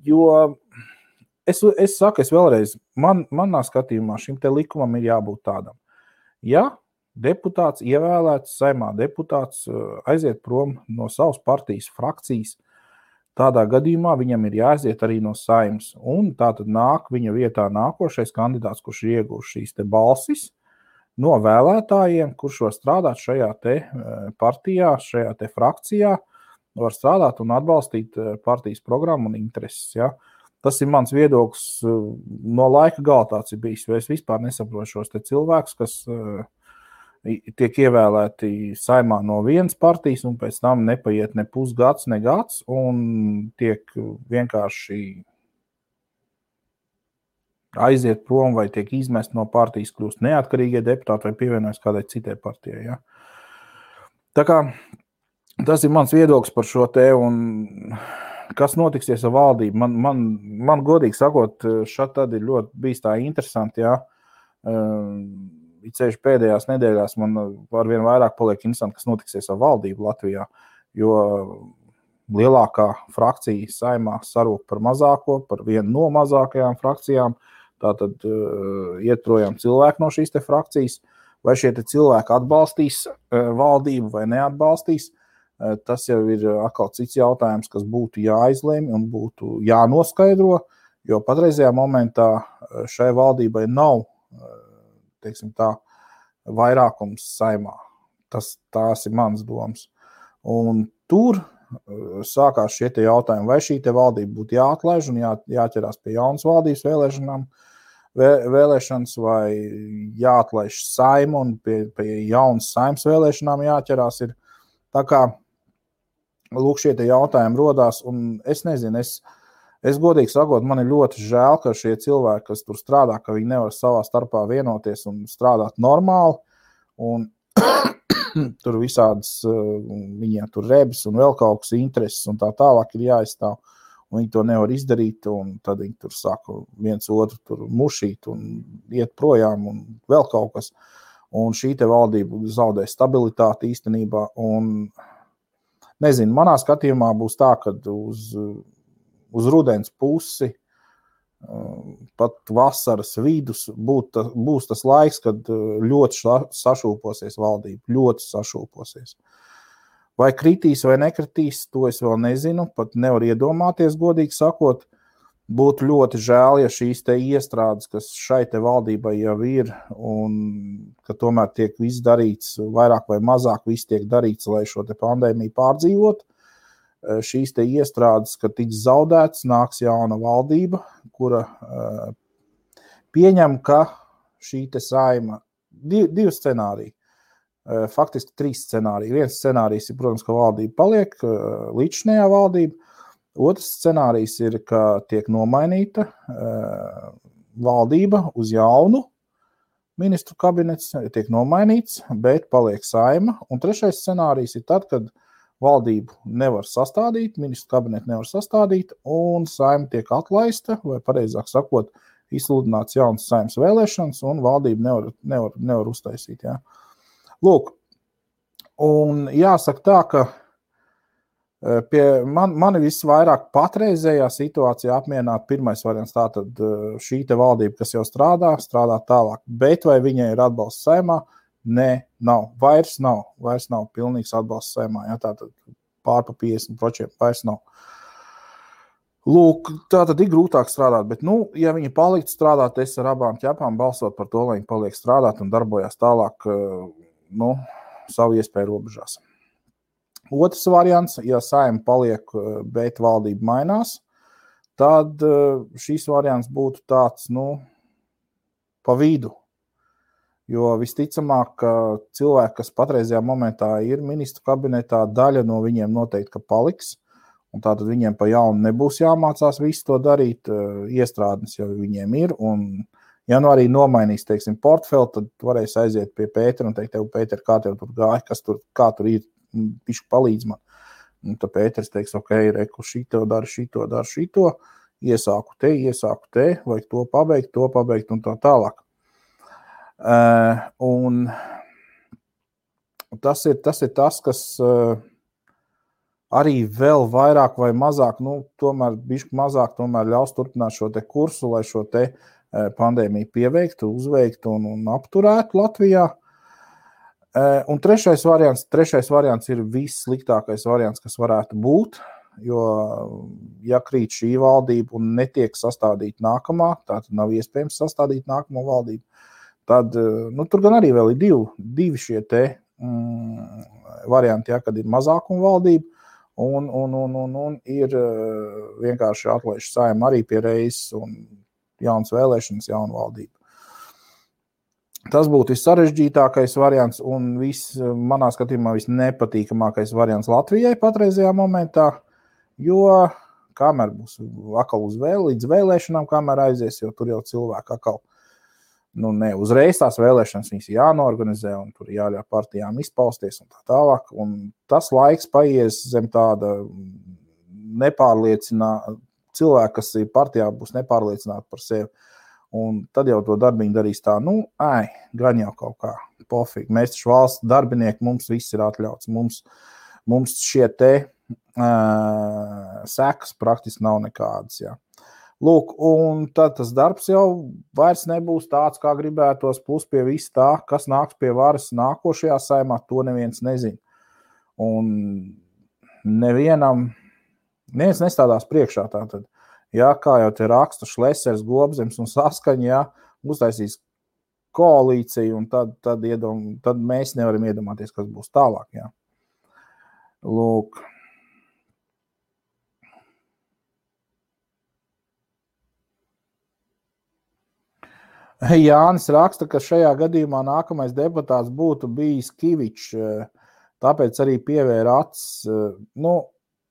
Speaker 1: Jo es saku, vēlreiz, manā skatījumā šim te likumam ir jābūt tādam. Ja deputāts ievēlēts, Saeimā deputāts aiziet prom no savas partijas frakcijas, tādā gadījumā viņam ir jāaiziet arī no Saeimas. Un tā tad nāk viņa vietā nākošais kandidāts, kurš ir ieguvis šīs te balsis no vēlētājiem, kurš var strādāt šajā te partijā, šajā te frakcijā, var strādāt un atbalstīt partijas programmu un intereses. Ja? Tas ir mans viedoklis, no laika gala tāds ir bijis, jo es vispār nesaprotu šos te cilvēkus, kas tiek ievēlēti Saeimā no vienas partijas un pēc tam nepaiet ne pusgads, ne gads un tiek vienkārši aiziet prom vai tiek izmest no partijas, kļūst neatkarīgie deputāti vai pievienojas kādai citai partijai. Ja? Tā kā tas ir mans viedoklis par šo te, un kas notiksies ar valdību. Man godīgi sakot, šad tad ir ļoti bijis tā interesanti, ja? Ceļš pēdējās nedēļās man arvien vairāk paliek interesanti, kas notiksies ar valdību Latvijā, jo lielākā frakcija saimā sarūk par mazāko, par vienu no mazākajām frakcijām, tātad iet projām cilvēki no šīs te frakcijas, vai šie te cilvēki atbalstīs valdību vai neatbalstīs, tas jau ir atkal cits jautājums, kas būtu jāizlemj un būtu jānoskaidro, jo patreizajā momentā šai valdībai nav, teiksim tā, vairākums saimā. Tās ir mans domas. Un tur sākās šie te jautājumi, vai šī te valdība būtu jāatlaiž un jāķerās pie jaunas valdības vēlēšanas, vai jāatlaiž saima un pie jaunas saimas vēlēšanām jāķerās. Ir. Tā kā, lūk, šie te jautājumi rodās, un es nezinu, es godīgi sakot, man ir ļoti žēl, ka šie cilvēki, kas tur strādā, ka viņi nevar savā starpā vienoties un strādāt normāli, un tur visādas, viņiem tur rebis un vēl kaut kas intereses un tā tālāk ir jāizstāv, un viņi to nevar izdarīt, un tad viņi tur saka viens otru tur mušīt un iet projām un vēl kaut kas, un šī te valdība zaudē stabilitāti īstenībā, un nezinu, manā skatījumā būs tā, kad uz rudens pusi, pat vasaras vidus būs tas laiks, kad ļoti sašūposies valdība, ļoti sašūposies. Vai kritīs vai nekritīs, to es vēl nezinu, pat nevar iedomāties, godīgi sakot. Būtu ļoti žēl, ja šīs te iestrādes, kas šai te valdībai jau ir, un ka tomēr tiek viss darīts, vairāk vai mazāk viss tiek darīts, lai šo te pandēmiju pārdzīvot. Šīs te iestrādes, kad tiks zaudēts, nāks jauna valdība, kura pieņem, ka šī te saima, divi scenāriji, faktiski 3 scenāriji. Viens scenārijs ir, protams, ka valdība paliek, līdzinējā valdība. Otrs scenārijs ir, ka tiek nomainīta valdība uz jaunu ministru kabinets, tiek nomainīts, bet paliek saima. Un trešais scenārijs ir tad, kad valdību nevar sastādīt, ministru kabinetu nevar sastādīt, un saima tiek atlaista, vai pareizāk sakot, izsludināts jaunas saimas vēlēšanas, un valdību nevar uztaisīt. Ja. Lūk, un jāsaka tā, ka mani visvairāk patreizējā situācijā apmierināt pirmais variants, tātad šī te valdība, kas jau strādā tālāk, bet vai viņai ir atbalsts saimā? Nē, nav. Vairs nav pilnīgs atbalsts saimā, ja, tātad pār pa 50% vairs nav. Lūk, tātad ir grūtāk strādāt, bet, ja viņi paliktu strādāt, es ar abām ķepām balsot par to, lai viņi paliek strādāt un darbojās tālāk, savu iespēju robežās. Otrs variants, ja saima paliek, bet valdība mainās, tad šīs variants būtu tāds, pa vidu. Jo visticamāk, ka cilvēki, kas patreizajā momentā ir ministru kabinetā, daļa no viņiem noteikti, ka paliks, un tātad viņiem pa jaunu nebūs jāmācās visu to darīt, iestrādnes jau viņiem ir, un ja arī nomainīs, teiksim, portfeli, tad varēs aiziet pie Pētera un teikt, tev, Pēter, kā tev tur gāja, kā tur ir, pišķi palīdz man. Un tad Pēters teiks, ok, reku, šito daru, iesāku te, vajag to pabeigt un tā tālāk. Un tas ir tas, kas arī vēl vairāk vai mazāk, tomēr bišķi mazāk tomēr ļaus turpināt šo te kursu, lai šo te pandēmiju pieveiktu, uzveiktu un apturētu Latvijā. Un trešais variants ir vissliktākais variants, kas varētu būt, jo ja krīt šī valdība un netiek sastādīt nākamā, tātad nav iespējams sastādīt nākamo valdību, tad, tur gan arī vēl ir divi šie te varianti, ja, kad ir mazākuma valdība un ir vienkārši atlaiž saima arī pie reizes un jaunas vēlēšanas, jauna valdība. Tas būtu vissarežģītākais variants un manā skatījumā visnepatīkamākais variants Latvijai patreizajā momentā, jo kamēr būs atkal līdz vēlēšanām, kamēr aizies, jo tur jau cilvēki atkal, ne uzreiz tās vēlēšanas viņas jānorganizē un tur jāļauj partijām izpausties un tā tālāk. Un tas laiks paies zem tāda cilvēki, kas ir partijā, būs nepārliecināti par sevi. Un tad jau to darbiņu darīs tā, gan jau kaut kā pofīgi. Mēs taču valsts darbinieki, mums viss ir atļauts. Mums šie te sekas praktiski nav nekādas, jā. Lūk, un tad tas darbs jau vairs nebūs tāds, kā gribētos, plus pie viss tā, kas nāks pie varas nākošajā saimā, to neviens nezina. Un neviens nestādās priekšā tātad. Jā, kā jau te raksta Šlesers, Globzems un Saskaņa, jā, uztaisīs koalīciju, un tad mēs nevaram iedomāties, kas būs tālāk, jā. Lūk. Jānis raksta, ka šajā gadījumā nākamais deputāts būtu bijis Kivičs, tāpēc arī pievēra acis.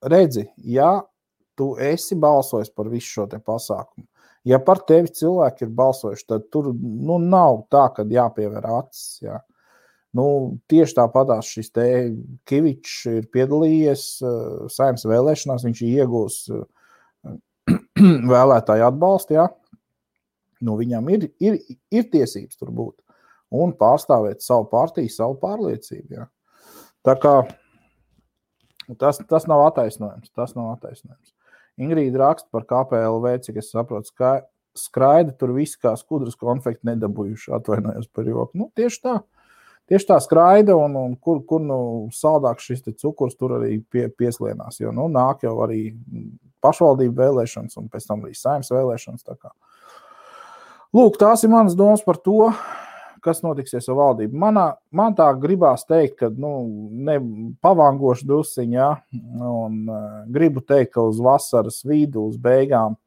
Speaker 1: Redzi, ja tu esi balsojis par visu šo te pasākumu, ja par tevi cilvēki ir balsojuši, tad tur nav tā, kad jāpievēr acis. Jā. Tieši tāpatās šis te Kivičs ir piedalījies Saeimas vēlēšanās, viņš iegūs vēlētāju atbalstu, jā. Viņam ir tiesības tur būt un pārstāvēt savu partiju, savu pārliecību. Jā. Tā kā tas nav attaisnojums. Ingrīda raksta par KPLV, cik es saprotu, skraida tur visi kā skudras konfekti nedabūjuši, atvainojos par joku. Tieši tā skraida un kur saldāks šis te cukurs tur arī pieslienās, jo nāk jau arī pašvaldību vēlēšanas un pēc tam arī Saeimas vēlēšanas. Tā kā. Lūk, tās ir manas domas par to, kas notiksies ar valdību. Man tā gribās teikt, ka pavangošu drusciņu, jā, un gribu teikt, ka uz vasaras vidu, uz beigām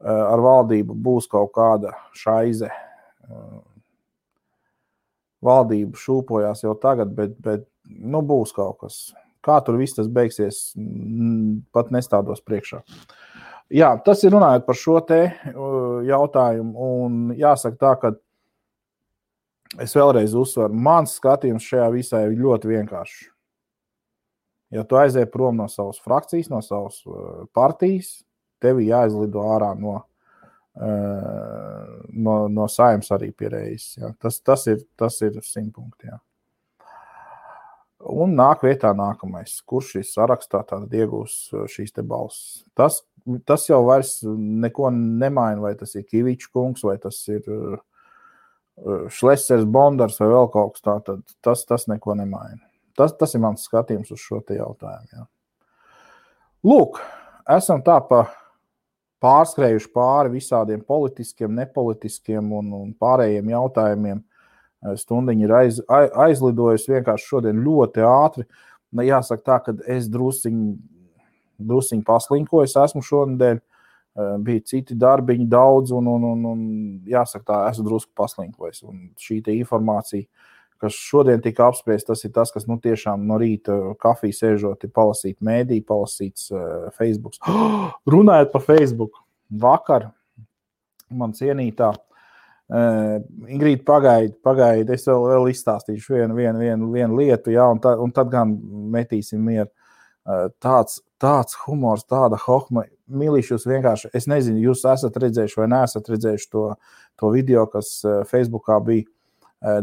Speaker 1: ar valdību būs kaut kāda šaize. Valdība šūpojās jau tagad, bet būs kaut kas. Kā tur viss tas beigsies, pat nestādos priekšā. Jā, tas ir runājot par šo te jautājumu, un jāsaka tā, ka es vēlreiz uzsveru, mans skatījums šajā visā ir ļoti vienkāršs. Ja tu aizies prom no savas frakcijas, no savas partijas, tevi jāizlido ārā no Saeimas arī pie reizes. Jā. Tas ir 100 punkti. Jā. Un nāk vietā nākamais, kurš šīs sarakstā tātad iegūs šīs te balsis. Tas jau vairs neko nemaina, vai tas ir Kivičs kungs, vai tas ir Šlesers Bondars vai vēl kaut kas tā, tad tas neko nemaina. Tas ir mans skatījums uz šo te jautājumu. Jā. Lūk, esam tā pārskrējuši pāri visādiem politiskiem, nepolitiskiem un pārējiem jautājumiem. Stundiņa ir aizlidojusi vienkārši šodien ļoti ātri. Jāsaka tā, ka es drusciņi pasliņkoju, esmu šonedēļ, bija citi darbiņi daudz un jāsaka tā, esmu drusku pasliņkojis. Un šī te informācija, kas šodien tika apspriest, tas ir tas, kas tiešām no rīta kafiju sēžot, ir palasīt mēdī, palasīts Facebook. Runājot par Facebook, vakar man cienītā Ingrīda pagaid, es vēl izstāstīšu vienu lietu, jā, un tad gan metīsim mieru. Tāds humors, tāda hohma, milīšus vienkārši, es nezinu, jūs esat redzējuši vai neesat redzējuši to video, kas Facebookā bija.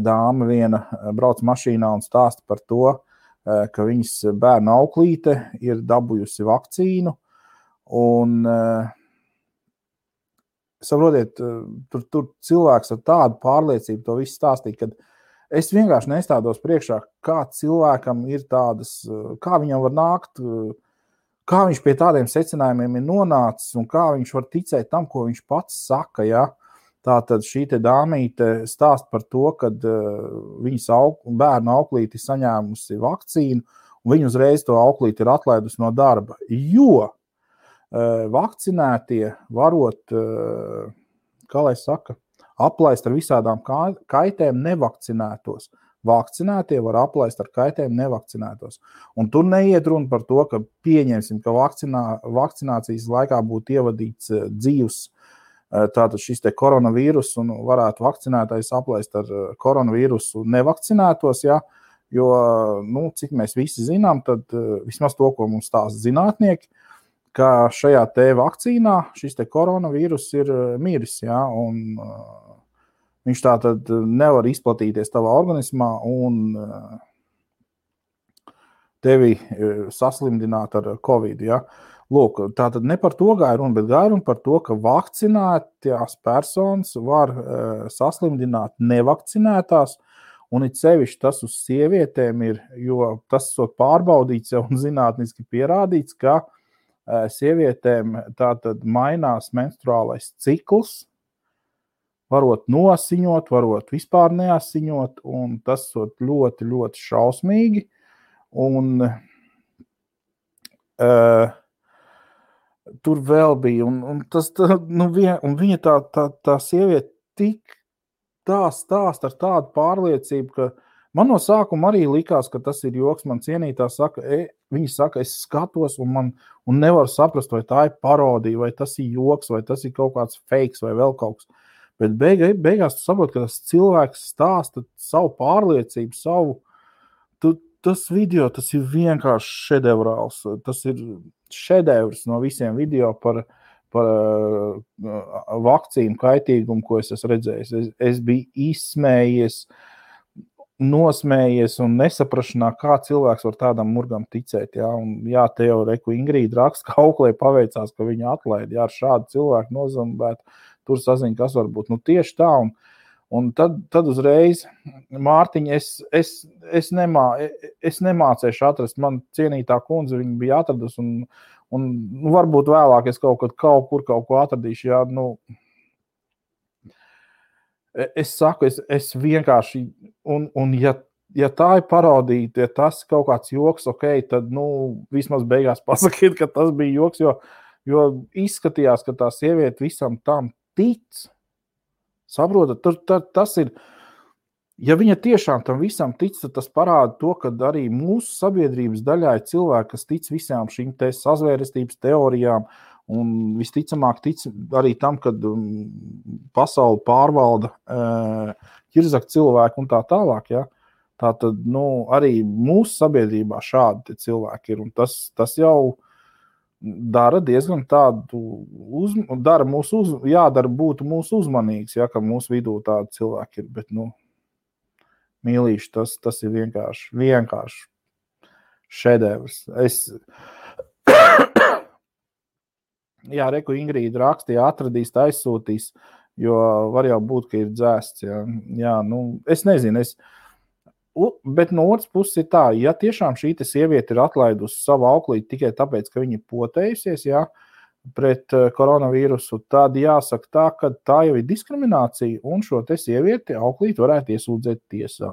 Speaker 1: Dāma viena brauc mašīnā un stāsta par to, ka viņas bērna auklīte ir dabūjusi vakcīnu un saprotiet, tur cilvēks ar tādu pārliecību to visu stāstīja, ka es vienkārši nestādos priekšā, kā cilvēkam ir tādas, kā viņam var nākt, kā viņš pie tādiem secinājumiem ir nonācis un kā viņš var ticēt tam, ko viņš pats saka, ja? Tātad šī te dāmīte stāst par to, kad viņas bērna auklīti saņēmusi vakcīnu un viņa uzreiz to auklīti ir atlaidusi no darba, jo vakcinētie varot, kā lai saka, aplaist ar visādām kaitēm nevakcinētos. vakcinētie var aplaist ar kaitējumu nevakcinētos. Un tur neiet runa par to, ka pieņemsim, ka vakcinācijas laikā būtu ievadīts dzīvs tātad šis te koronavīrus un varētu vakcinētais aplaist ar koronavīrusu nevakcinētos, ja? Jo, nu, cik mēs visi zinām, tad vismaz to, ko mums stāsta zinātnieki, ka šajā te vakcīnā šis te koronavīrus ir miris, ja? Un viņš tātad nevar izplatīties tavā organismā un tevi saslimdināt ar Covid, ja? Lūk, tātad ne par to gāja runa, bet gāja runa par to, ka vakcinētās personas var saslimdināt nevakcinētās, un it sevišķi tas uz sievietēm ir, jo tas esot pārbaudīts jau un zinātniski pierādīts, ka sievietēm tātad mainās menstruālais cikls, varot nosiņot, varot vispār neasiņot, un tas esot ļoti, ļoti šausmīgi, un tur vēl bija, un tas, nu, un viņa tā sieviete tik tā stāst ar tādu pārliecību, ka man no sākuma arī likās, ka tas ir joks, man cienītā saka, viņa saka, es skatos un nevaru saprast, vai tā ir parodija, vai tas ir joks, vai tas ir kaut kāds fakes, vai vēl kaut kas. Bet beigās tu saproti, ka tas cilvēks stāsta savu pārliecību, tas video, tas ir vienkārši šedevrāls. Tas ir šedevrs no visiem video par vakcīnu kaitīgumu, ko es esmu redzējis. Es biju izsmējies, nosmējies un nesaprašanā, kā cilvēks var tādam murgam ticēt. Ja? Un, jā, te jau reku Ingrīda raksta, ka Auklē paveicās, ka viņa atlaida. Jā, ar šādu cilvēku nozumbētu, tur saziņa, kas var būt. Nu, tieši tā, un tad uzreiz, Mārtiņ, es nemācēšu atrast, man cienītā kundze, viņa bija atradusi, un varbūt vēlāk es kaut ko atradīšu, jā, nu, es saku, es vienkārši, un ja tā ir parodīta, ja tas kaut kāds joks, ok, tad, nu, vismaz beigās pasakiet, ka tas bija joks, jo izskatījās, ka tā sieviete visam tam tic. Saprotat, tas ir, ja viņa tiešām tam visam tic, tad tas parāda to, ka arī mūsu sabiedrības daļā ir cilvēki, kas tic visām šīm te sazvērestības teorijām un visticamāk tic arī tam, kad pasauli pārvalda ķirzak cilvēki un tā tālāk, ja. Tātad, nu, arī mūsu sabiedrībā šādi cilvēki ir, un tas jau dara diezgan tādu, jādara būtu mūsu uzmanīgs, ja, ka mūsu vidū tādi cilvēki ir, bet, nu, mīlīši, tas ir vienkārši šedevrs. Jā, reku Ingrīda rakstīja, atradīs, aizsūtīs, jo var jau būt, ka ir dzēsts, jā, nu, es nezinu, bet no otras puses ir tā, ja tiešām šī sieviete ir atlaidusi savu auklīti tikai tāpēc, ka viņa potējusies, jā, pret koronavīrusu, tad jāsaka tā, ka tā jau ir diskriminācija, un šo te sievieti auklīti varētu iesūdzēt tiesā.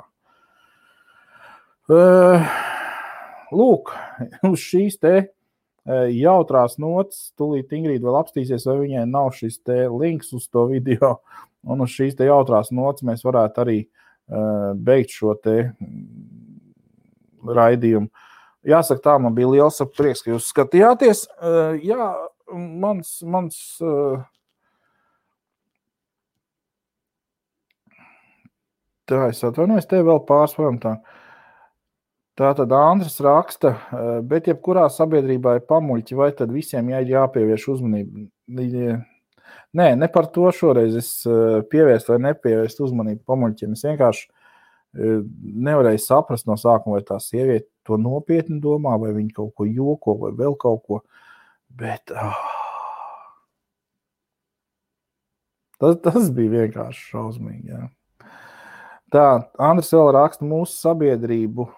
Speaker 1: Lūk, uz šīs te jautrās nots, tūlīt Ingrīda vēl apstīsies, vai viņai nav šis te links uz to video, un uz šīs te jautrās nots mēs varētu arī beigt šo te raidījumu. Jāsaka tā, man bija liels prieks, ka jūs skatījāties. Jā, mans tā, es atvainojos, te vēl pārsvaram tā. Tātad Andris raksta, bet jebkurā sabiedrībā ir pamuļķi, vai tad visiem jāpievērš uzmanību? Nē, ne par to šoreiz es pievērst vai nepievērst uzmanību pamuļķiem. Es vienkārši nevarēju saprast no sākuma, vai tā sieviete to nopietni domā, vai viņa kaut ko joko, vai vēl kaut ko. Bet tas bija vienkārši šausmīgi. Jā. Tā, Andris vēl raksta, mūsu sabiedrību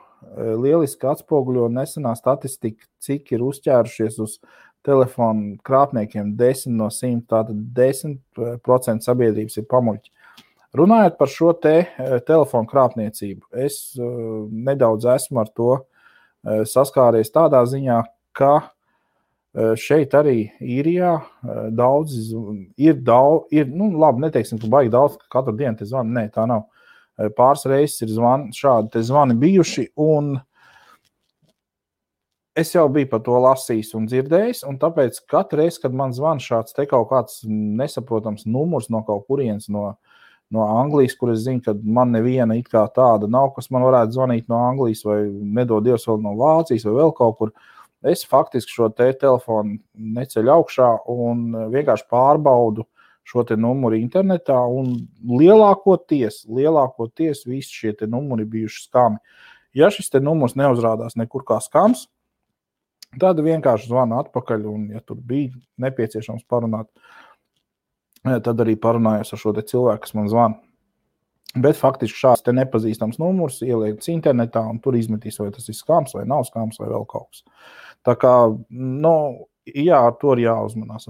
Speaker 1: lieliski atspoguļo nesenā statistika, cik ir uzķērušies uz telefonu krāpniekiem 10 no 100, tātad 10% sabiedrības ir pamuļķi. Runājot par šo te telefonu krāpniecību, es nedaudz esmu ar to saskāries tādā ziņā, ka šeit arī Īrijā daudz, nu labi, neteiksim, ka baigi daudz, ka katru dienu te zvanu, nē, tā nav. Pāris reizes ir šādi te zvani bijuši, un es jau biju par to lasījis un dzirdējis, un tāpēc katru reizi, kad man zvan šāds te kaut kāds nesaprotams numurs no kaut kurienes no Anglijas, kur es zinu, ka man neviena it kā tāda nav, kas man varētu zvanīt no Anglijas vai nedod Dievs vēl no Vācijas vai vēl kaut kur, es faktiski šo te telefonu neceļu augšā un vienkārši pārbaudu šo te numuru internetā, un lielākoties visi šie te numuri bijuši skami. Ja šis te numurs neuzrādās nekur kā skams, tad vienkārši zvanu atpakaļ, un ja tur bija nepieciešams parunāt, tad arī parunājos ar šo te cilvēku, kas man zvana. Bet faktiski šāds te nepazīstams numurs ieliekts internetā, un tur izmetīs, vai tas ir skams, vai nav skams, vai vēl kaut kas. Tā kā, jā, ar to ir jāuzmanās,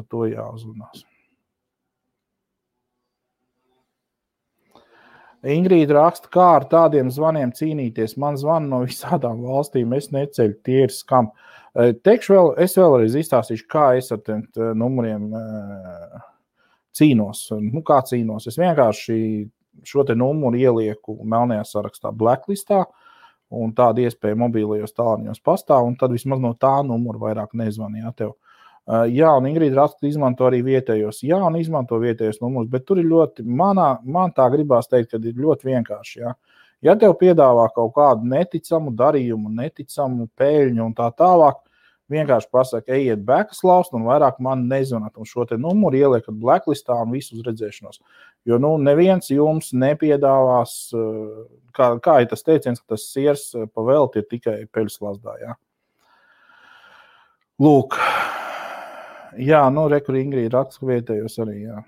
Speaker 1: Ingrīda raksta, kā ar tādiem zvaniem cīnīties. Man zvana no visādām valstīm, es neceļu, tie ir skam. Es vēlreiz izstāstīšu, kā es ar tiem numuriem cīnos. Kā cīnos? Es vienkārši šo te numuru ielieku melnajā sarakstā blacklistā, un tāda iespēja mobīlajos tālruņos pastāv, un tad vismaz no tā numura vairāk nezvanīja tev. Jā, un Ingrīda raksta, izmanto arī vietējos. Jā, un izmanto vietējos numurus, bet tur ir ļoti, man tā gribās teikt, ka ir ļoti vienkārši, jā. Ja tev piedāvā kaut kādu neticamu darījumu, neticamu pēļņu un tā tālāk, vienkārši pasaka, ejiet bekas laust un vairāk man nezvanāt, un šo te numuru ieliekat blacklistā un visu uz redzēšanos. Jo, neviens jums nepiedāvās, kā ir tas teiciens, ka tas siers pa velti ir tikai peļas lazdā, jā. Lūk. Jā, rekur Ingrīda raksta vietējos arī, jā.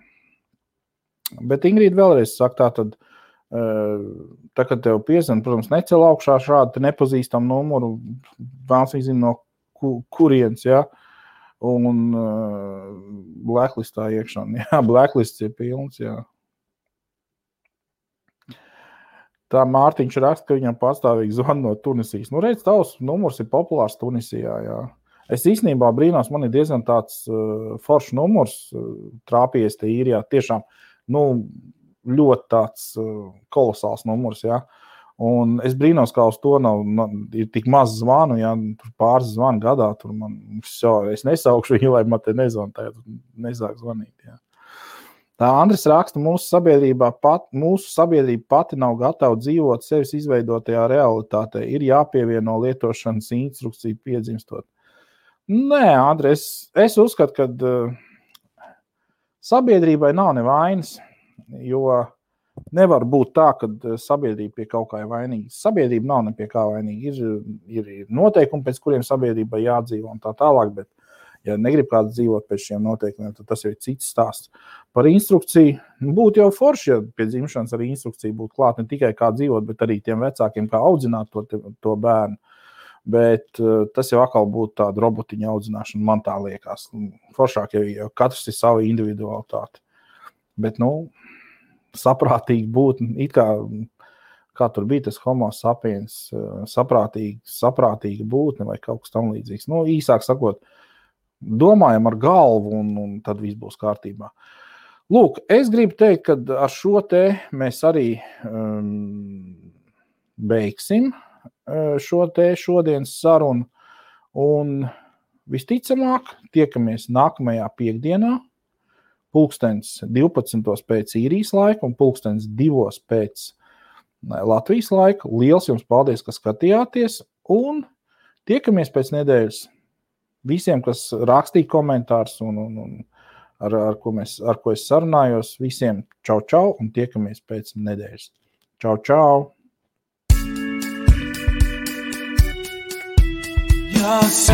Speaker 1: Bet Ingrīda vēlreiz saka, tā, kad tev piezvan, protams, necel augšā šādu nepazīstamu numuru, vēlas viņi zina no kurienes, jā, un blacklistā iekšā, jā, blacklists ir pilns, jā. Tā Mārtiņš raksta, ka viņam pastāvīgi zvan no Tunisijas. Redz, tavs numurs ir populārs Tunisijā, jā. Es īstenībā brīnos, man ir diezgan tāds foršs numurs trāpījies te īrijā. Tiešām, ļoti tāds kolosāls numurs, jā. Un es brīnos, kā uz to ir tik maz zvanu, jā, tur pāris zvanu gadā, tur es nesaukšu viņu, lai man te nezvan, nesāk zvanīt, jā. Tā Andris raksta, mūsu sabiedrība pati nav gatava dzīvot sevis izveidotajā realitātē. Ir jāpievieno lietošanas instrukciju piedzimstot. Nē, Andri, es uzskatu, ka sabiedrībai nav nevainas, jo nevar būt tā, ka sabiedrība pie kaut kā ir vainīga. Sabiedrība nav ne pie kā vainīga. Ir noteikumi, pēc kuriem sabiedrībai jādzīvo un tā tālāk, bet ja negrib kāds dzīvot pēc šiem noteikumiem, tad tas ir cits stāsts. Par instrukciju būtu jau forši, ja pie dzimšanas arī instrukcija būtu klāt, ne tikai kā dzīvot, bet arī tiem vecākiem, kā audzināt to bērnu. Bet tas jau atkal būtu tāda robotiņa audzināšana, man tā liekas. Foršāk, ja katrs ir sava individualitāte. Bet, saprātīgi būt, it kā tur bija tas homo sapiens, saprātīga būtne vai kaut kas tam līdzīgs. Īsāk sakot, domājam ar galvu un tad viss būs kārtībā. Lūk, es gribu teikt, ka ar šo te mēs arī beigsim šo te šodienas sarunu, un visticamāk tiekamies nākamajā piekdienā, 12:00 pēc īrijas laika un 2:00 pēc Latvijas laika. Liels jums paldies, ka skatījāties, un tiekamies pēc nedēļas. Visiem, kas rakstīja komentārus un ar ko es sarunājos, visiem čau, un tiekamies pēc nedēļas. Čau! Yes,